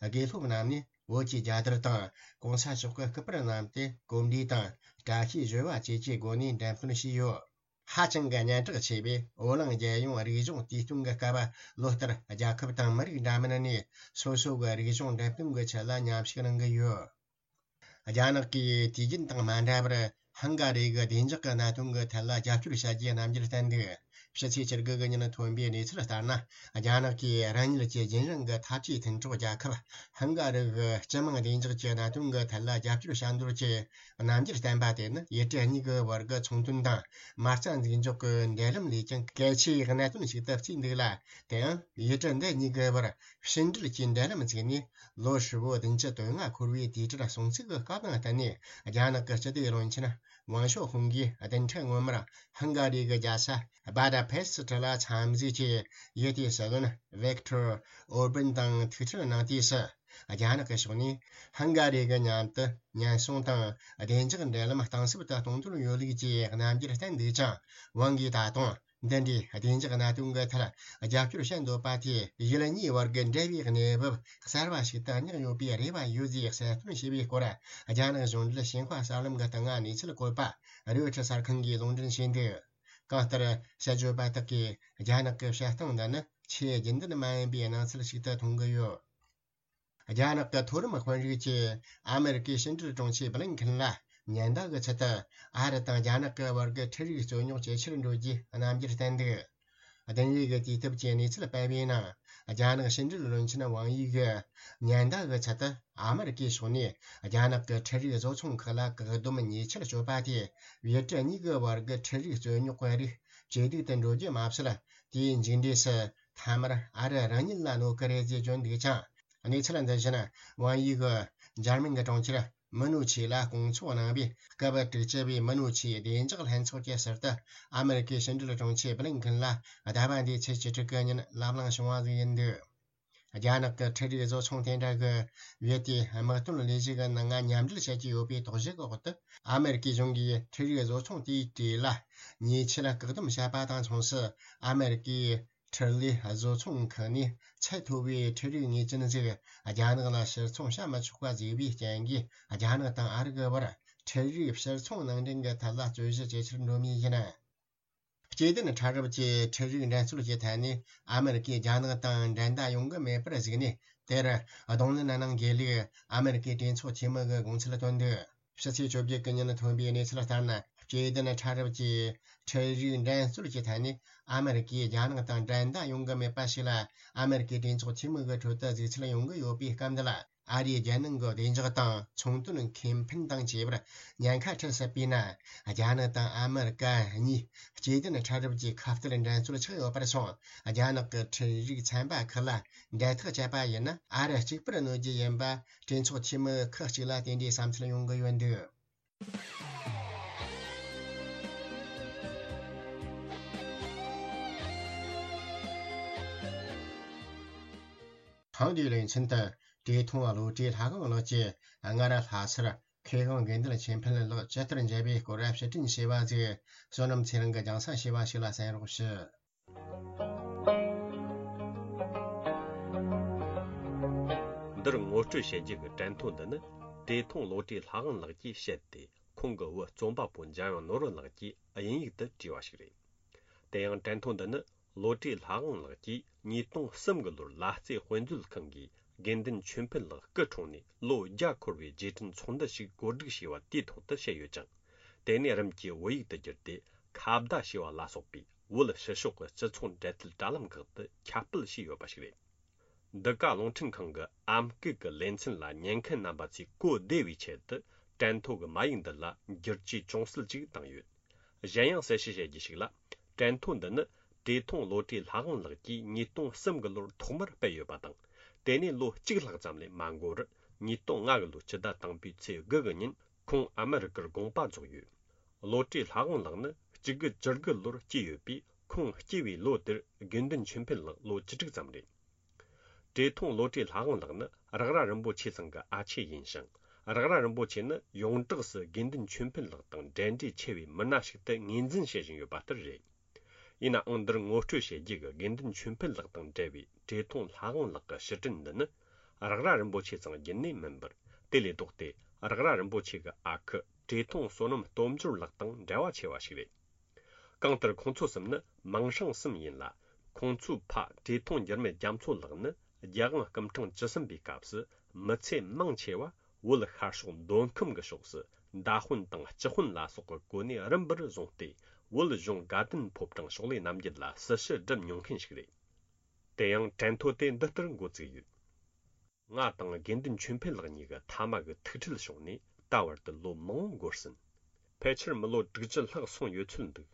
དགེ་སློབ་རྣམས་ནས་བོད་ཀྱི་རྒྱལ་དར་དང་གོང་ས་མཆོག་གི་སྐུ་པར་བསྣམས་ཏེ་གོམས་འདྲིས་དང་བཀྲ་ཤིས་བཞད་པ་བཅས་ཀྱི་སྒོ་ནས་འགྲེམས་སྟོན་བྱས་ཡོད། ཧ་ཅང་གི་སྙན་གྲགས་ཆེ་བའི་འོ་གླིང་རྒྱལ་ཡོངས་རིག་གཞུང་དུས་སྟོན་གྱི་སྐབས། ལོ་ལྟར་རྒྱལ་ཁབ་དང་མི་རིགས་འདྲ་མིན་ནས་སོ་སོ་གི་རིག་གཞུང་འགྲེམས་སྟོན་གྱི་ཆེད་ལ་མཉམ་ཞུགས་གནང་གི་ཡོད། རྒྱ་ནག་གིས་དུས་རྒྱུན་དང་མ་འདྲ་བར་ཧང་ག་རི་གི་བདེ་འཇགས་ཀྱི་གནད་དོན་གྱི་ཐད་ལ་རྒྱབ་སྐྱོར་བྱ་རྒྱུའི་རྣམ་འགྱུར་བསྟན་འདུག། ཕྱི་ཚེས་བཅུ་དགུ་གི་ཉིན་ཐོན་པའི་གནས་ཚུལ་ལྟར་ན། རྒྱ་ནག་གིས་རང་ཉིད་ཀྱི་རྒྱུན་རིང་གི་འཐབ་ཇུས་མཐུན་གྲོགས་རྒྱལ་ཁབ་ཧང་ག་རི་གི་སྤྱི་དམངས་བདེ་འཇགས་ཀྱི་གནད་དོན་གྱི་ཐད་ལ་རྒྱབ་སྐྱོར་བྱ་འདོད་ཀྱི་རྣམ་འགྱུར་བསྟན་པ་དེ་ནི། ཡུལ་གྲུ་གཉིས་ཀྱི་བར་གྱི་ཚོང་དོན་དང་མ་རྩ་འཛུགས་འཇོག་གི་འབྲེལ་ལམ་ལས་ཀྱང་གལ་ཆེའི་གནད་དོན་ཞིག་ཏུ་བརྩིས་འདུག་ལ། དེའང་ཡུལ་གྲུ་འདི་གཉིས་ཀྱི་བར་ཕྱི་འབྲེལ་གྱི་འབྲེལ་ལམ་བཙུགས་ནས། ལོ་ཧྲིལ་བོ་བདུན་ཅུ་དོན་ལྔ་འཁོར་བའི་དུས་དྲན་སྲུང་བརྩི་གི་སྐབས་དང་བསྟུན་ནས། རྒྱ་ནག་གི་སྤྱི་བདེ་བློན་ཆེན་ཝང་ཞའོ་ཧུང་གིས་བདུན་ཕྲག་སྔོན་མར་ཧང་ག་རི་གི་རྒྱལ་ས་བྷ་ད་པེ་སི་ཊི་ལ་འཚམས་གཟིགས་ཀྱིས། ཡུལ་དེའི་སྲིད་བློན་ཝིག་ཐོར་ཨོར་བན་དང་ཐུག་འཕྲད་གནང་དུས་སུ། རྒྱ་ནག་གི་ཕྱོགས་ནས་ཧང་ག་རི་གི་མཉམ་དུ་ཉེན་སྲུང་དང་བདེ་འཇགས་འབྲེལ་ལམ་གཏིང་ཟབ་ཏུ་གཏོང་འདོད་ཡོད་ལུགས་ཀྱི་རྣམ་འགྱུར་བསྟན་འདུག་ཅིང་། ཝང་གིས་ད་དུང་འདི་འདྲའི་བདེ་འཇགས་གནད་དོན་གྱི་ཐད་རྒྱབ་སྐྱོར་བྱེད་འདོད་པ་དེས། ཡུལ་གཉིས་བར་གྱི་འབྲེལ་བའི་གནས་བབ་གསར་བ་ཞིག་ཏུ་བསྙེགས་ཡོད་པའི་རེ་བ་ཡོད་ཅེས་གསལ་སྟོན་བྱས་པའི་སྐོར། རྒྱ་ནག་གཞུང་འབྲེལ་ཞིན་ཧྭ་གསར་ལམ་གྱི་སྟེང་ང་གནས་ཚུལ་བཀོད་པ་རོའི་ཊར་གསར་ཁང་གིས་ལུང་འདྲེན་བྱས་འདུག། གང་ལྟར། དཔྱད་བརྗོད་པ་དག་གིས་རྒྱ་ནག་གི་བཤད་སྟངས་འདི་ནི་ཆེས་རྒྱུན་ལྡན་མ་ཡིན་པའི་སྣང་ཚུལ་ཞིག་ཏུ་མཐོང་གི་ཡོད། རྒྱ་ནག་གི་མཐོ་རིམ་དཔོན་རིགས་ཀྱིས་ཨ་མེ་རི་ཀའི་ཕྱི་འབྲེལ་དྲུང་ཆེ་བྷི་ལིན་ཁིན་ལ་ཉེན་བརྡ་གི་ཚུལ་དུ། ཨ་རི་དང་རྒྱ་ནག་གི་བར་གྱི་འཕྲུལ་རིག་རྩོད་རྙོག་ཇེ་ཆེར་འགྲོ་རྒྱུའི་རྣམ་འགྱུར་བསྟན་འདུག། བདུན་རེས་ཀྱི་དུས་སྟབས་ཀྱི་གནས་ཚུལ་སྤེལ་བའི་ནང་། རྒྱ་ནག་ཕྱི་འབྲེལ་བློན་ཆེན་ཝང་དབྱི་གིས་ཉེན་བརྡ་གི་ཚུལ་དུ། ཨ་མེ་རི་ཀའི་ཕྱོགས་ནས་རྒྱ་ནག་གི་འཕྲུལ་རིག་བཟོ་ཚོང་ཁག་ལ་བཀག་སྡོམ་ཉེས་ཆད་གཅོད་པ་དེས། ཡུལ་གྲུ་གཉིས་ཀྱི་བར་གྱི་འཕྲུལ་རིག་རྩོད་རྙོག་གི་རིགས་ཇེ་སྡུག་ཏུ་འགྲོ་རྒྱུ་མ་ཟད། དེའི་མཇུག་འབྲས་སུ་མཐའ་མར་ཨ་རི་རང་ཉིད་ལ་གནོད་ཀྱི་རེད་ཅེས་བརྗོད་འདུག་ཅིང་། གནས་ཚུལ་འདི་བཞིན་ཝང་དབྱི་གིས་འཇར་མན་གྱི་གྲོང་ཁྱེར་མུ་ནུ་ཆི་ལ་སྐོང་ཚོགས་གནང་བའི་སྐབས། དྲུག་ཅུ་བའི་མུ་ནུ་ཆིའི་བདེ་འཇགས་ལྷན་ཚོགས་ཀྱི་ཟུར་དུ་ཨ་མེ་རི་ཀའི་ཕྱི་འབྲེལ་དྲུང་ཆེ་བྷི་ལིན་ཁིན་ལ་ཟླ་བ་འདིའི་ཚེས་བཅུ་དྲུག་གི་ཉིན་ལབ་གླེང་བྱུང་བ་ཞིག་ཡིན་འདུག། རྒྱ་ནག་གི་འཕྲུལ་རིག་བཟོ་ཚོང་དེ་འདྲ་གིས་ཡུལ་དེའི་དམག་དོན་ལས་གཞི་གི་ནང་ང་མཉམ་འབྲེལ་བྱེད་ཀྱི་ཡོད་པའི་དོགས་གཞི་གི་འོག་ཏུ། ཨ་མེ་རི་ཀའི་གཞུང་གིས་འཕྲུལ་རིག་བཟོ་ཚོང་དེའི་གྲས་ལ་ཉེས་ཆད་བཀག་སྡོམ་བྱས་པ་དང་མཚུངས་སུ། ཨ་མེ་རི་ཀའི་འཕྲུལ་ལས་བཟོ་ཚོང་ཁང་ནས་ཚད་མཐོ་བའི་འཕྲུལ་རིག་ངེས་ཅན་ཞིག་རྒྱ་ནག་ལ་ཕྱིར་ཚོང་བྱ་མི་ཆོག་པ་བཟོས་པའི་རྐྱེན་གྱིས། རྒྱ་ནག་དང་ཨ་རི་གི་བར་འཕྲུལ་རིག་ཕྱིར་ཚོང་ནང་འདྲེན་གྱི་ཐད་ལ་རྩོད་གཞི་ཇེ་ཆེར་འགྲོ་མུས་ཡིན། སྐྱེ་ལྡན་ཕྲ་རབ་ཀྱི་འཕྲུལ་རིག་འགྲན་རྩོད་ཀྱི་ཐད་ནས་ཨ་མེ་རི་ཀས་རྒྱ་ནག་དང་འགྲན་ཟླ་ཡོང་གི་མེད་པར་གཟིགས་ནས། དེར་གདོང་ལེན་གནང་དགོས་ལུགས་ཨ་མེ་རི་ཀའི་གྲོས་ཚོགས་འཐུས་མི་གིས་དགོངས་ཚུལ་བཏོན་འདུག། ཕྱི་ཚེས་བཅོ་བརྒྱད་ཀྱི་ཉིན་ཐོན་པའི་གནས་ཚུལ་ལྟར་ན། སྐྱེ་ལྡན་ཕྲ་རབ་ཀྱི་འཕྲུལ་རིག་འགྲན་རྩོད་ཀྱི་ཐད་ནས་ཨ་མེ་རི་ཀས་རྒྱ་ནག་དང་འགྲན་ཟླ་ཡོང་གི་མེད་པ་ཞིག་ལ། ཨ་མེ་རི་ཀའི་གྲོས་ཚོགས་འཐུས་མི་གི་ཁྲོད་དུ་གཟིགས་ཚུལ་ཡོང་གི་ཡོད་པའི་སྐབས་འདི་ལ། ཨ་རིའི་རྒྱལ་ནང་གི་བདེ་འཇགས་དང་ཚོང་དོན་ཁེ་ཕན་དང་བཅས་པར་ཉེན་ཁ་འཕྲད་སྲིད་པས་ན། རྒྱ་ནག་དང་ཨ་མེ་རི་ཀ་གཉིས་སྐྱེ་ལྡན་ཕྲ་རབ་ཀྱི་ཁ་གཏད་འགྲན་རྩོད་ཆགས་ཡོད་པར་སོང་། རྒྱ་ནག་གི་འཕྲུལ་རིག་ཚན་པ་ཁག་ལ་འབྲེལ་ཐག་བཅད་པ་ཡིན་ན། ཨ་རི་གཅིག་པུར་གནོད་རྒྱུ་ཡིན་པ། གྲོས་ཚོགས་འཐུས་མི་ཁག་ཅིག་ལ་དེ་འདྲའི་བསམ་ཚུལ་ཡོང་གི་ཡོད་འདུག། ཐེངས་འདིའི་ལེ་ཚན་དུ། བཀྲས་མཐོང་བློ་གྲོས་ལྷ་དབང་ལགས་ཀྱིས་སྔར་ལྷ་སར་མཁས་དབང་དགེ་འདུན་ཆོས་འཕེལ་ལགས་ཇི་ལྟར་མཇལ་བའི་སྐོར་བཤད་སྤྲིངས་བྱས་པ་ཞིག་བསོད་ནམས་ཚེ་རིང་གིས་རྒྱང་སྲིང་བྱས་པ་ཞིག་ལ་གསན་རོགས་ཞུ། འདིར་ངོ་སྤྲོད་བྱེད་རྒྱུ་གི་དྲན་ཐོ་འདི་ནི། བཀྲས་མཐོང་བློ་གྲོས་ལྷ་དབང་ལགས་ཀྱིས་བཤད་དེ། ཁོང་གི་བུ་རྩོམ་པ་པོ་འཇམ་དབྱངས་ནོར་བུ་ལགས་ཀྱིས་དབྱིན་ཡིག་ཏུ་བྲིས་པ་ཞིག་རེད། དེ་ཡང་དྲན་ཐོ་འདི་ནི། བློ་གྲོས་ལྷ་དབང་ལགས་ཀྱིས་ཉིས་སྟོང་གསུམ་གི་ལོར་ལ་རྩེ་དཔེ་མཛོད་ཁང་གིས་དགེ་འདུན་ཆོས་འཕེལ་ལགས་སྐུ་འཁྲུངས་ནས་ལོ་བརྒྱ་འཁོར་བའི་རྗེས་དྲན་ཚོགས་འདུ་ཞིག་གོ་སྒྲིག་བྱས་པ་དེའི་ཐོག་ཏུ་བཤད་ཡོད་ཅིང་། དེ་ནས་རིམ་གྱིས་བོད་ཡིག་ཏུ་བསྒྱུར་ཏེ། ཁ་བརྡ་ཞེས་པ་ལ་སོགས་པའི་བོད་ཕྱི་ཕྱོགས་ཀྱི་སྤྱི་ཚོགས་འབྲེལ་མཐུད་དྲ་ལམ་ཁག་ཏུ་ཁྱབ་སྤེལ་བྱས་ཡོད་པ་ཞིག་རེད། འདི་ག་རླུང་འཕྲིན་ཁང་གི་ཨམ་སྐད་ཀྱི་ལེ་ཚན་ལ་ཉན་མཁན་རྣམ་པ་ཚོས་གོ་བདེ་བའི་ཆེད་དུ། དྲན་ཐོ་གི་མ་ཡིག་འདི་ལ་བསྒྱུར་བཅོས་ཅུང་ཟད་ཅིག་བཏང་ཡོད། གཞན་ཡང་གསལ་བཤད་བྱེད་རྒྱུ་ཞིག་ལ། དྲན་ཐོ་འདི་ནི་བཀྲས་མཐོང་བློ་གྲོས་ལྷ་དབང་ལགས་ཀྱིས་ཉིས་སྟོང་གསུམ་གི་ལོར་ཐོག་མར་སྤེལ་ཡོད་པ་དང་། དེ་ནས་ལོ་གཅིག་ལྷག་ཙམ་ལས་མ་འགོར་བར་ཉིས་སྟོང་ལྔ་གི་ལོའི་སྤྱི་ཟླ་དང་པོའི་ཚེས་དགུ་གི་ཉིན་ཁོང་ཨ་མི་རི་ཀར་དགོངས་པ་རྫོགས་ཡོད། བློ་གྲོས་ལྷ་དབང་ལགས་ནི་གཅིག་དགུ་བཅུ་དགུ་ལོར་སྐྱེས་ཡོད་པས། ཁོང་སྐྱེས་པའི་ལོ་དེར་དགེ་འདུན་ཆོས་འཕེལ་ལགས་ལོ་བཅུ་དྲུག་ཙམ་རེད། བཀྲས་མཐོང་བློ་གྲོས་ལྷ་དབང་ལགས་ནི་རེག་ར་རིན་པོ་ཆེ་ཚང་གི་ཨ་ཆེ་ཡིན་ཞིང་། རེག་ར་རིན་པོ་ཆེ་ནི་ཡོངས་གྲགས་སུ་དགེ་འདུན་ཆོས་འཕེལ་ལགས་དང་འབྲེལ་འདྲིས་ཆེ་བའི་མི་སྣ་ཞིག་ཏུ་ངོས་འཛིན་བྱེད་བཞིན་ཡོད་པ་ལྟར་རེད། ཡིན་ནའང་འདིར་ངོ་སྤྲོད་བྱེད་རྒྱུ་གི་དགེ་འདུན་ཆོས་འཕེལ་ལགས་དང་འབྲེལ་བའི་བཀྲས་མཐོང་ལྷ་དབང་ལགས་ཀྱི་ཕྱིར་དྲན་འདི་ནི་རེག་ར་རིན་པོ་ཆེ་ཚང་བརྒྱུད་ནས་མིན་པར། དེ་ལས་ལྡོག་སྟེ་རེག་ར་རིན་པོ་ཆེ་གི་ཨ་ཁུ་བཀྲས་མཐོང་བསོད་ནམས་སྟོབས་འབྱོར་ལགས་དང་འབྲེལ་བ་ཆེ་བ་ཞིག་རེད། གང་ལྟར་ཁོང་ཚོ་གསུམ་ནི་མིང་སྲིང་གསུམ་ཡིན་ལ། ཁོང་ཚོའི་ཕ་བཀྲས་མཐོང་འགྱུར་མེད་རྒྱ་མཚོ་ལགས་ནི་རྒྱལ་དབང་སྐུ་ཕྲེང་བཅུ་གསུམ་པའི་སྐབས་སུ་མི་ཚེ་མང་ཆེ་བ་བོད་ཤར་ཕྱོགས་མདོ་ཁམས་ཀྱི་ཕྱོགས་སུ་མདའ་དཔོན་དང་སྤྱི་དཔོན་ལ་སོགས་ཀྱི་གོ་གནས་རིམ་པར་བཟུང་སྟེ། བོད་གཞུང་དགའ་ལྡན་ཕོ་བྲང་ཕྱོགས་ལས་རྣམ་རྒྱལ་ལ་སྲི་ཞུ་སྒྲུབ་མྱོང་མཁན་ཞིག་རེད། དེ་ཡང་དྲན་ཐོ་དེ་འདི་ལྟར་འགོ་བཙུགས་ཡོད། ང་དང་དགེ་འདུན་ཆོས་འཕེལ་ལགས་གཉིས་ཀྱི་མཐའ་མ་གི་ཐུག་འཕྲད་བྱུང་ནས་ད་བར་དུ་ལོ་མང་པོ་འགོར་ཟིན། ཕལ་ཆེར་མི་ལོ་དྲུག་ཅུ་ལྷག་སོང་ཡོད་ཚོད་འདུག།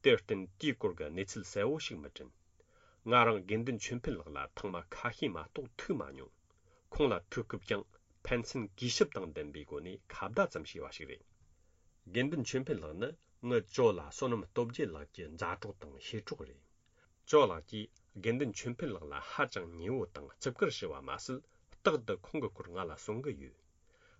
དེར་བརྟེན་དེའི་སྐོར་གྱི་གནས་ཚུལ་གསལ་བོ་ཞིག་མི་དྲན། ང་རང་དགེ་འདུན་ཆོས་འཕེལ་ལགས་ལ་ཐེངས་མ་ཁ་ཤས་མ་གཏོགས་ཐུག་མ་མྱོང་། ཁོང་ལ་ཐུག་སྐབས་ཀྱང་ཕན་ཚུན་གུས་ཞབས་དང་ལྡན་པའི་སྒོ་ནས་ཁ་བརྡ་ཙམ་བྱས་པ་ཞིག་རེད། དགེ་འདུན་ཆོས་འཕེལ་ལགས་ནི་ངའི་ཇོ་ལགས་བསོད་ནམས་སྟོབས་རྒྱལ་ལགས་ཀྱི་མཛའ་གྲོགས་དང་གཤེད་གྲོགས་རེད། ཇོ་ལགས་ཀྱིས་དགེ་འདུན་ཆོས་འཕེལ་ལགས་ལ་ཧ་ཅང་ཉེ་བོ་དང་བརྩི་བཀུར་ཞུ་བ་མ་ཟད། རྟག་ཏུ་ཁོང་གི་སྐོར་ང་ལ་གསུང་གི་ཡོད།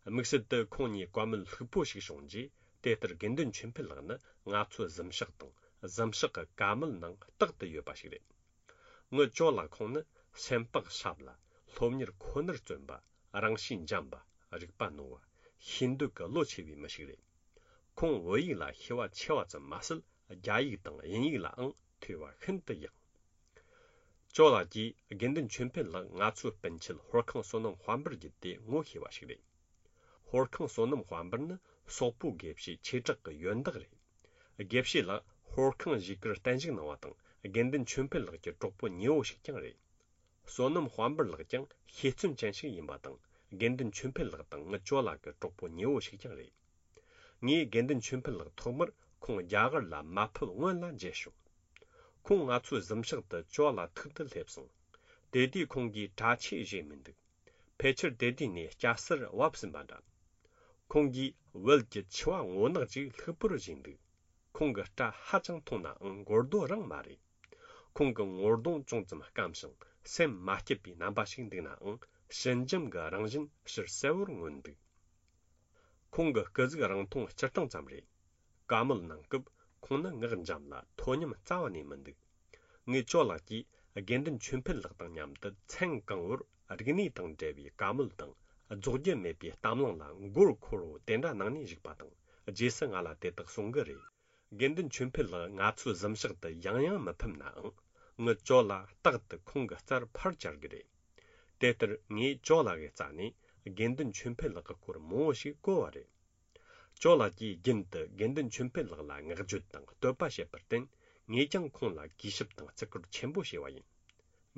དམིགས་བསལ་དུ་ཁོང་གཉིས་བཀའ་མོལ་ལྷུག་པོ་ཞིག་བྱུང་རྗེས། དེ་ལྟར་དགེ་འདུན་ཆོས་འཕེལ་ལགས་ནི་ང་ཚོའི་གཟིམ་ཤག་དང་གཟིམ་ཤག་གི་ཀ་མལ་ནང་རྟག་ཏུ་ཡོད་པ་ཞིག་རེད། ངའི་ཇོ་ལགས་ཁོང་ནི་སེམས་པ་ཞབས་ལ། སློབ་གཉེར་ཁོ་ནར་བརྩོན་པ། རང་གཤིས་འཇམ་པ། རིག་པ་རྣོ་བ། ཤེས་འདོད་ཀྱི་བློ་ཆེ་བའི་མི་ཞིག་རེད། ཁོང་བོད་ཡིག་ལ་ཤེས་པ་ཆེ་བ་ཙམ་མ་ཟད། རྒྱ་ཡིག་དང་དབྱིན་ཡིག་ལའང་ཐོས་པ་ཤིན་ཏུ་ཡག། ཇོ་ལགས་ཀྱིས་དགེ་འདུན་ཆོས་འཕེལ་ལགས་ང་ཚོའི་སྤུན་མཆེད་ཧོར་ཁང་བསོད་ནམས་དཔལ་འབར་བརྒྱུད་དེ་ངོ་ཤེས་པ་ཞིག་རེད། ཧོར་ཁང་བསོད་ནམས་དཔལ་འབར་ནི་སོག་པོ་དགེ་བཤེས་ཆོས་གྲགས་ཀྱི་ཡོན་བདག་རེད། དགེ་བཤེས་ལགས་ཧོར་ཁང་བཞེས་ཀར་བརྟན་བཞུགས་གནང་བ་དང་། དགེ་འདུན་ཆོས་འཕེལ་ལགས་ཀྱི་གྲོགས་པོ་ཉེ་བོ་ཞིག་ཀྱང་རེད། བསོད་ནམས་དཔལ་འབར་ལགས་ཀྱང་ཤེས་བརྩོན་ཅན་ཞིག་ཡིན་པ་དང་། དགེ་འདུན་ཆོས་འཕེལ་ལགས་དང་ངའི་ཇོ་ལགས་ཀྱི་གྲོགས་པོ་ཉེ་བོ་ཞིག་ཀྱང་རེད། ངས་དགེ་འདུན་ཆོས་འཕེལ་ལགས་ཐོག་མར་ཁོང་རྒྱ་གར་ལ་མ་ཕེབས་སྔོན་ལ་མཇལ་བྱུང་། ཁོང་ང་ཚོའི་གཟིམ་ཤག་ཏུ་ཇོ་ལགས་ཐུག་ཏུ་སླེབས་སོང་། དེ་དུས་ཁོང་གིས་གྲྭ་ཆས་བཞེས་མི་འདུག། ཕལ་ཆེར་དེ་དུས་ནས་སྐྱ་སེར་བབས་ཟིན་པ་འདྲ། ཁོང་གིས་བལ་གྱི་ཆུ་བ་སྔོ་ནག་ཅིག་ལྷུག་པོར་བཞེས་འདུག། ཁོང་གི་སྐྲ་ཧ་ཅང་མཐོང་ནའང་མགོ་རྡོ་རང་མ་རེད། ཁོང་གི་ངོ་གདོང་ཅུང་ཙམ་སྐམ་ཞིང་སེམས་མ་སྐྱིད་པའི་རྣམ་པ་ཞིག་འདུག་ནའང་ཞི་འཇམ་གྱི་རང་བཞིན་ཕྱིར་གསལ་བོར་མངོན་འདུག། ཁོང་གི་སྐུ་གཟུགས་རིང་ཐུང་སྤྱིར་བཏང་ཙམ་རེད། བཀའ་མོལ་གནང་སྐབས་ཁོང་ནི་ངག་འཇམ་ལ་མཐོ་ཉམས་རྩ་བ་ནས་མི་འདུག། ངའི་ཇོ་ལགས་ཀྱིས་དགེ་འདུན་ཆོས་འཕེལ་ལགས་དང་མཉམ་དུ་མཚན་གང་བོར་རིག་གནས་དང་འབྲེལ་བའི་བཀའ་མོལ་དང་། རྫོགས་རྒྱུ་མེད་པའི་གཏམ་གླེང་ལ་མགོ་འཁོར་བོ་དེ་འདྲ་གནང་ནས་བཞུགས་པ་དང་། རྗེས་སུ་ང་ལ་དེ་དག་གསུང་གི་རེད། དགེ་འདུན་ཆོས་འཕེལ་ལགས་ང་ཚོའི་གཟིམ་ཤག་ཏུ་ཡང་ཡང་མི་ཕེབས་ནའང་། ངའི་ཇོ་ལགས་རྟག་ཏུ་ཁོང་གི་རྩར་ཕར་བཅར་གི་རེད། དེ་ལྟར་ངས་ཇོ་ལགས་ཀྱི་རྩ་ནས་དགེ་འདུན་ཆོས་འཕེལ་ལགས་ཀྱི་སྐོར་མང་བོ་ཞིག་གོ་བ་རེད། ཇོ་ལགས་ཀྱིས་རྒྱུན་དུ་དགེ་འདུན་ཆོས་འཕེལ་ལགས་ལ་བསྔགས་བརྗོད་དང་བསྟོད་པ་བྱེད་པར་བརྟེན། ངས་ཀྱང་ཁོང་ལ་གུས་ཞབས་དང་བརྩི་བཀུར་ཆེན་པོ་བྱས་པ་ཡིན།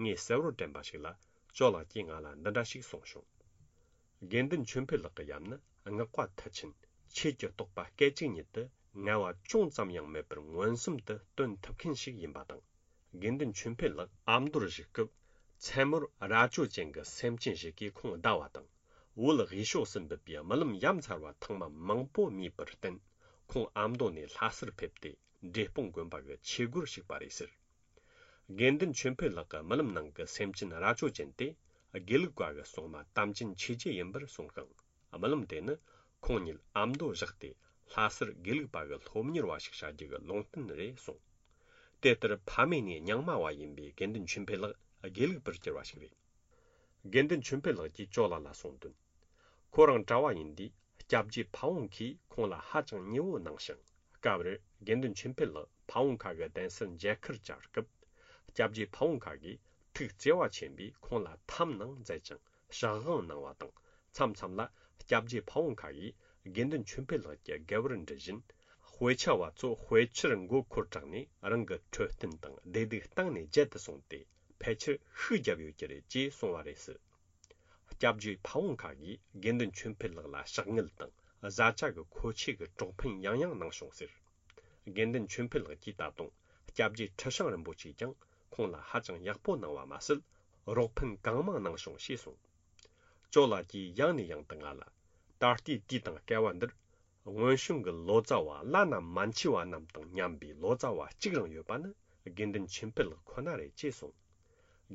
ངས་གསལ་བོར་དྲན་པ་ཞིག་ལ། ཇོ་ལགས་ཀྱིས་ང་ལ་འདི་འདྲ་ཞིག་གསུངས་བྱུང་། དགེ་འདུན་ཆོས་འཕེལ་ལགས་ཀྱི་ཡབ་ནི་བསྔགས་པ་མཐུ་ཆེན། ཆོས་ཀྱི་རྟོགས་པ་སྐད་ཅིག་ཉིད་དུ་ངལ་བ་ཅུང་ཙམ་ཡང་མེད་པར་མངོན་སུམ་དུ་སྟོན་ཐུབ་མཁན་ཞིག་ཡིན་པ་དང་། དགེ་འདུན་ཆོས་འཕེལ་ལགས་ཨ་མདོར་བཞུགས་སྐབས། མཚན་མོར་རྭ་ཅོ་ཅན་གྱི་སེམས་ཅན་ཞིག་གིས་ཁོང་བདའ་བ་དང་། བོད་དབུས་ཕྱོགས་སུ་འབུད་པའི་རྨི་ལམ་ཡ་མཚར་བ་ཐེངས་མ་མང་པོ་རྨིས་པར་བརྟེན། ཁོང་ཨ་མདོ་ནས་ལྷ་སར་ཕེབས་ཏེ། འབྲས་སྤུངས་དགོན་པ་གི་ཆོས་སྒོར་ཞུགས་པ་རེད་ཟེར། དགེ་འདུན་ཆོས་འཕེལ་ལགས་ཀྱི་རྨི་ལམ་ནང་གི་སེམས་ཅན་རྭ་ཅོ་ཅན་དེ། དགེ་ལུགས་པ་གི་སྲུང་མ་དམ་ཅན་ཆོས་རྗེ་ཡིན་པར་གསུངས་ཤིང་། རྨི་ལམ་དེ་ནི་ཁོང་ཉིད་ཨ་མདོ་བཞག་སྟེ། ལྷ་སར་དགེ་ལུགས་པ་གི་སློབ་གཉེར་བ་ཞིག་བྱ་རྒྱུ་གི་ལུང་བསྟན་རེད་གསུངས། དེ་ལྟར་ཕ་མེས་ནས་རྙིང་མ་བ་ཡིན་པའི་དགེ་འདུན་ཆོས་འཕེལ་ལགས་དགེ་ལུགས་པར་གྱུར་བ་ཞིག་རེད། དགེ་འདུན་ཆོས་འཕེལ་ལགས་ཀྱིས་ཇོ་ལགས་ལ་གསུངས་དོན། ཁོ་རང་གྲྭ་བ་ཡིན་དུས་སྐྱབས་རྗེ་ཕ་བོང་ཁས་ཁོང་ལ་ཧ་ཅང་ཉེ་བོ་གནང་ཞིང་། སྐབས་རེར་དགེ་འདུན་ཆོས་འཕེལ་ལགས་ཕ་བོང་ཁ་གི་གདན་སར་མཇལ་ཁར་བཅར་སྐབས། སྐྱབས་རྗེ་ཕ་བོང་ཁ་གིས་ཐུགས་བརྩེ་བ་ཆེན་པོས་ཁོང་ལ་འཐམ་གནང་མཛད་ཅིང་ཕྱག་དབང་གནང་བ་དང་། མཚམས་མཚམས་ལ་སྐྱབས་རྗེ་ཕ་བོང་ཁ་གིས་དགེ་འདུན་ཆོས་འཕེལ་ལགས་ཀྱི་དགེ་བར་འདྲི་བཞིན། དཔེ་ཆ་བ་ཚོ་དཔེ་ཆར་མགོ་འཁོར་དྲགས་ནས་རང་གི་འཕྲོད་བསྟེན་དང་བདེ་སྡུག་གཏིང་ནས་བརྗེད་དུ་སོང་སྟེ། ཕལ་ཆེར་ཤུགས་བརྒྱབ་ཡོད་ཀྱི་རེད་ཅེས་གསུངས་པ་རེད་ཟེར། སྐྱབས་རྗེ་ཕ་བོང་ཁ་གིས་དགེ་འདུན་ཆོས་འཕེལ་ལགས་ལ་ཕྱག་དངུལ་དང་བཟའ་བཅའ་གི་མཁོ་ཆས་ཀྱི་གྲོགས་ཕན་ཡང་ཡང་གནང་བྱུང་ཟེར། དགེ་འདུན་ཆོས་འཕེལ་ལགས་ཀྱིས་ད་དུང་སྐྱབས་རྗེ་ཁྲི་བྱང་རིན་པོ་ཆེས་ཀྱང་ཁོང་ལ་ཧ་ཅང་ཡག་པོ་གནང་བ་མ་ཟད། རོགས་ཕན་གང་མང་གནང་བྱུང་ཞེས་གསུངས། ཅོ་ལགས་ཀྱིས་ཡང་ནས་ཡང་དུ་ང་ལ། ད་ལྟའི་དུས་དང་སྐལ་བ་འདིར། སྔོན་བྱུང་གི་ལོ་ཙཱ་བ་བླ་ན་མ་མཆིས་པ་རྣམས་དང་མཉམ་པའི་ལོ་ཙཱ་བ་གཅིག་རང་ཡོད་པ་ནི་དགེ་འདུན་ཆོས་འཕེལ་ལགས་ཁོ་ན་རེད་ཅེས་གསུངས།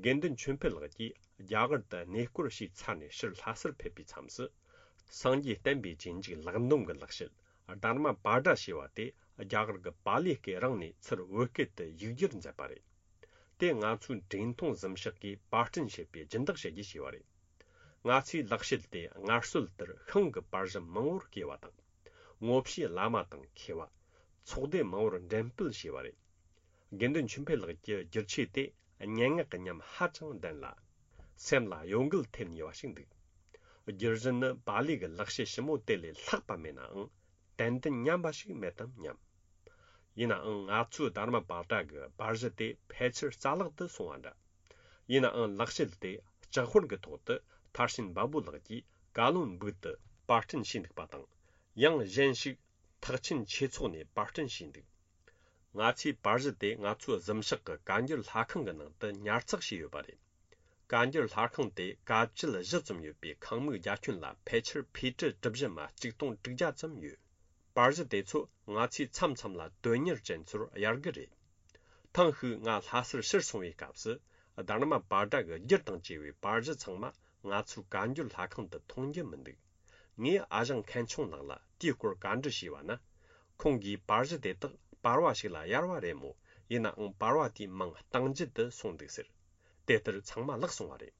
དགེ་འདུན་ཆོས་འཕེལ་ལགས་ཀྱིས་རྒྱ་གར་དུ་གནས་སྐོར་ཞུས་ཚར་ནས་ཕྱིར་ལྷ་སར་ཕེབས་པའི་མཚམས་སུ། སངས་རྒྱས་བསྟན་པའི་རྗེས་འཇུག་ལེགས་འདོམས་ཀྱི་ལེགས་བཤད་དྷརྨ་པཱ་ཏྲ་ཞེས་པ་དེ་རྒྱ་གར་གྱི་པཱ་ལི་སྐད་རང་ནས་ཚུར་བོད་སྐད་དུ་ཡིག་སྒྱུར་མཛད་པ་རེད། དེ་ང་ཚོའི་འབྲེལ་མཐོང་གཟིམ་ཤག་གིས་པར་སྐྲུན་བྱས་པའི་སྦྱིན་བདག་བྱེད་རྒྱུ་བྱས་པ་རེད། ང་ཚོས་ལེགས་བཤད་དེ་སྔར་སྲོལ་ལྟར་ཤིང་གི་པར་གཞི་མང་བོར་བརྐོས་པ་དང་། ངོ་བཤུས་བླ་མ་དང་མཁས་པ། ཚོགས་སྡེ་མང་བོར་འགྲེམས་སྤེལ་བྱས་པ་རེད། དགེ་འདུན་ཆོས་འཕེལ་ལགས་ཀྱི་བསྒྱུར་ཆས་དེ་སྙན་ངག་གི་ཉམས་ཧ་ཅང་ལྡན་ལ། སེམས་ལ་གཡོ་འགུལ་ཐེབས་ནུས་པ་ཞིག་འདུག། བསྒྱུར་གཞི་ནི་པཱ་ལི་གི་ལེགས་བཤད་ཞིབ་མོ་དེ་ལས་ལྷག་པ་མེད་ནའང་། ཏན་ཏན་ཉམས་པ་ཞིག་མེད་དམ་སྙམ། ཡིན་ནའང་ང་ཚོའི་དྷརྨ་པཱ་ཏྲ་གི་པར་གཞི་དེ་ཕལ་ཆེར་རྩ་བརླག་ཏུ་སོང་བ་འདྲ། ཡིན་ནའང་ལེགས་བཤད་དེ་ལྕགས་ཧོར་གྱི་ཐོག་ཏུ་མཐར་ཕྱིན་བ་བུ་ལགས་ཀྱིས་ཀ་ལོན་སྦུག་ཏུ་པར་སྐྲུན་བྱས་འདུག་པ་དང་། ཡང་གཞན་ཞིག་ཐེག་ཆེན་ཆོས་ཚོགས་ནས་པར་སྐྲུན་བྱས་འདུག། ང་ཚོའི་པར་གཞི་དེ་ང་ཚོའི་གཟིམ་ཤག་གི་བཀའ་འགྱུར་ལྷ་ཁང་གི་ནང་དུ་ཉར་ཚགས་བྱས་ཡོད་པ་རེད། བཀའ་འགྱུར་ལྷ་ཁང་དེ་བཀའ་དཔྱད་བཞི་ཙམ་ཡོད་པའི་ཁང་མིག་རྒྱ་ཁྱོན་ལ་ཕལ་ཆེར་ཕི་ཀྲི་གྲུ་བཞི་མ་གཅིག་སྟོང་དྲུག་བརྒྱ་ཙམ་ཡོད། པར་གཞི་དེ་ཚོ་ང་ཚོས་མཚམས་མཚམས་ལ་དོན་གཉེར་ཅན་ཚོར་གཡར་གི་རེད། ཐེངས་ཤིག་ང་ལྷ་སར་ཕྱིར་སོང་བའི་སྐབས་སུ་དྷརྨ་པཱ་ཏྲ་གི་སྒྱུར་དང་བཅས་པའི་པར་གཞི་ཚང་མ་ང་ཚོའི་བཀའ་འགྱུར་ལྷ་ཁང་དུ་མཐོང་རྒྱུ་མི་འདུག། ངས་ཨ་ཞང་མཁན་ཆུང་ལགས་ལ་དེའི་སྐོར་བཀའ་འདྲི་ཞུས་པ་ན། ཁོང་གིས་པར་གཞི་དེ་དག་པར་བ་ཞིག་ལ་གཡར་བ་རེད་མོད། ཡིན་ནའང་པར་བ་དེའི་མིང་གཏང་རྒྱུ་དུ་སོང་འདུག་ཟེར། དེ་ལྟར་ཚང་མ་བརླག་སོང་བ་རེད།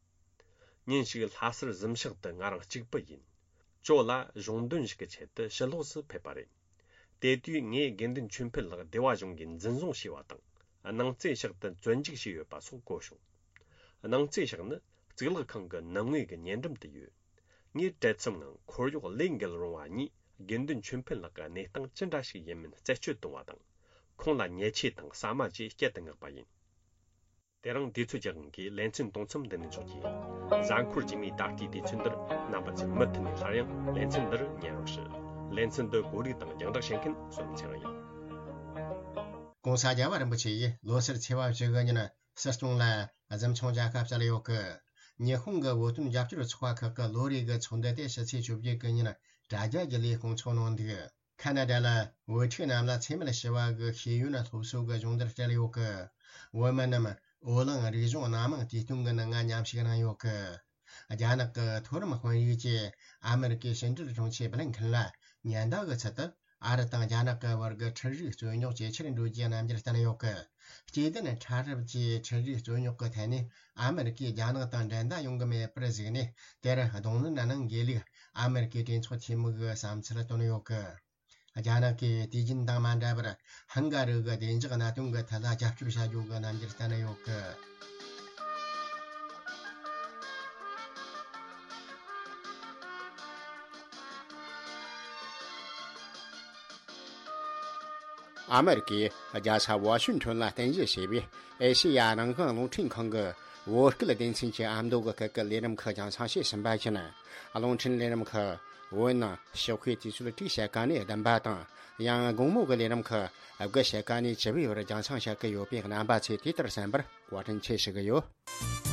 ཉིན་ཞིག་ལྷ་སར་གཟིམ་ཤག་ཏུ་ང་རང་གཅིག་པུ་ཡིན། ཇོ་ལགས་གཞུང་དོན་ཞིག་གི་ཆེད་དུ་ཕྱི་ལོགས་སུ་ཕེབས་པ་རེད། དེ་དུས་ངས་དགེ་འདུན་ཆོས་འཕེལ་ལགས་སྡེ་བ་གཞུང་གིས་འཛིན་བཟུང་བྱས་པ་དང་། སྣང་རྩེ་ཤག་ཏུ་བཙོན་འཇུག་བྱས་ཡོད་པ་སོགས་གོ་བྱུང་། སྣང་རྩེ་ཤག་ནི་གཙུག་ལག་ཁང་གི་ནང་ངོས་ཀྱི་ཉེ་འགྲམ་དུ་ཡོད། ངས་བྲེལ་འཚུབ་ངང་འཁོར་གཡོག་ལས་འགུལ་རུང་བ་གཉིས་དགེ་འདུན་ཆོས་འཕེལ་ལགས་ཀྱི་གནས་སྟངས་ཅི་འདྲ་ཞིག་ཡིན་མིན་རྩད་གཅོད་གཏོང་བ་དང་། ཁོང་ལ་ཉེས་ཆད་དང་ཟ་མ་བཅས་བསྐྱལ་དུ་མངགས་པ་ཡིན། དེ་རིང་དུས་ཚོད་ཀྱི་དབང་གིས་ལེ་ཚན་དུང་མཚམས་འདི་ནས་འཇོག་རྒྱུ་ཡིན། གཟའ་འཁོར་རྗེས་མའི་ད་ལྟའི་དུས་ཚོད་འདིར་རྣམ་པ་ཚོས་མུ་མཐུད་ནས་སླར་ཡང་ལེ་ཚན་འདིར་ཉན་རོགས་ཞུ། ལེ་ཚན་འདི་གོ་སྒྲིག་དང་རྒྱང་བསྒྲགས་བྱེད་མཁན་བསོད་ནམས་ཚེ་རིང་ཡིན། ྋགོང་ས་རྒྱལ་བ་རིན་པོ་ཆེ་ཡིས་ལོ་སར་ཚེས་པ་བཅུ་དགུ་ཉིན་སྲིད་སྐྱོང་ལ་གཟིམ་ཆུང་མཇལ་ཁ་བསྩལ་ཡོད་སྐད། ཉི་ཧོང་གི་བོད་དོན་རྒྱབ་སྐྱོར་ཚོགས་པ་ཁག་གི་ལོ་རེའི་གི་ཚོགས་འདུ་དེ་ཕྱི་ཚེས་བཅོ་བརྒྱད་གི་ཉིན་དྲ་རྒྱ་བརྒྱུད་ལས་སྐོང་ཚོགས་གནང་འདུག། ཁ་ན་ཌ་ལ་བོད་ཕྲུག་རྣམས་ལ་འཚེ་མེད་ཞི་བ་གི་ཤེས་ཡོན་སློབ་གསོ་གི་སྦྱོང་བརྡར་སྤྲད་ཡོད་གི། བོད་མི་རྣམས་འོ་གླིང་རིག་གཞུང་སྣ་མང་དུས་སྟོན་གི་ནང་ང་མཉམ་ཞུགས་གནང་ཡོད་གི། རྒྱ་ནག་གི་མཐོ་རིམ་དཔོན་རིགས་ཀྱིས་ཨ་མེ་རི་ཀའི་ཕྱི་འབྲེལ་དྲུང་ཆེ་བྷི་ལིན་ཁིན་ལ་ཉེན་བརྡ་གི་ཚུལ་དུ། ཨ་རི་དང་རྒྱ་ནག་གི་བར་གྱི་འཕྲུལ་རིག་རྩོད་རྙོག་ཇེ་ཆེར་འགྲོ་རྒྱུའི་རྣམ་འགྱུར་བསྟན་ཡོད་གི། སྐྱེ་ལྡན་ཕྲ་རབ་ཀྱི་འཕྲུལ་རིག་རྩོད་རྙོག་གི་ཐད་ནས་ཨ་མེ་རི་ཀས་རྒྱ་ནག་དང་འགྲན་ཟླ་ཡོང་གི་མེད་པར་གཟིགས་ནས། དེར་གདོང་ལེན་གནང་དགོས་ལུགས་ཨ་མེ་རི་ཀའི་གྲོས་ཚོགས་འཐུས་མི་གིས་བསམ་ཚུལ་བཏོན་ཡོད་གི། རྒྱ་ནག་གིས་དུས་རྒྱུན་དང་མ་འདྲ་བར་ཧང་ག་རི་གི་བདེ་འཇགས་གནད་དོན་གྱི་ཐད་ལ་རྒྱབ་སྐྱོར་བྱ་རྒྱུ་གི་རྣམ་འགྱུར་བསྟན་ཡོད་གི། ཨ་མེ་རི་ཀའི་རྒྱལ་ས་ཝ་ཤིང་ཊོན་ལ་རྟེན་གཞི་བྱས་པའི་ཨེ་ཤེ་ཡ་རང་དབང་རླུང་འཕྲིན་ཁང་གི་བོད་སྐད་སྡེ་ཚན་གྱི་ཨ་མདོ་གི་སྐད་ཀྱི་ལས་རིམ་ཁག་རྒྱང་སྲིང་བྱས་ཟིན་པ་བཞིན། རླུང་འཕྲིན་ལས་རིམ་ཁག་བོད་ནང་ཞོགས་ཀའི་དུས་ཚོད་དྲུག་ཕྱེད་ཀ་ནས་བདུན་པ་དང་། ཡང་དགོང་མོ་གི་ལས་རིམ་ཁག་དགུ་ཕྱེད་ཀ་ནས་བཅུ་པའི་བར་རྒྱང་སྲིང་བྱེད་ཀྱི་ཡོད་པས། རྣམ་པ་ཚོས་དེ་ལྟར་གསན་པར་བཀའ་དྲིན་ཆེ་ཞུ་གི་ཡོད།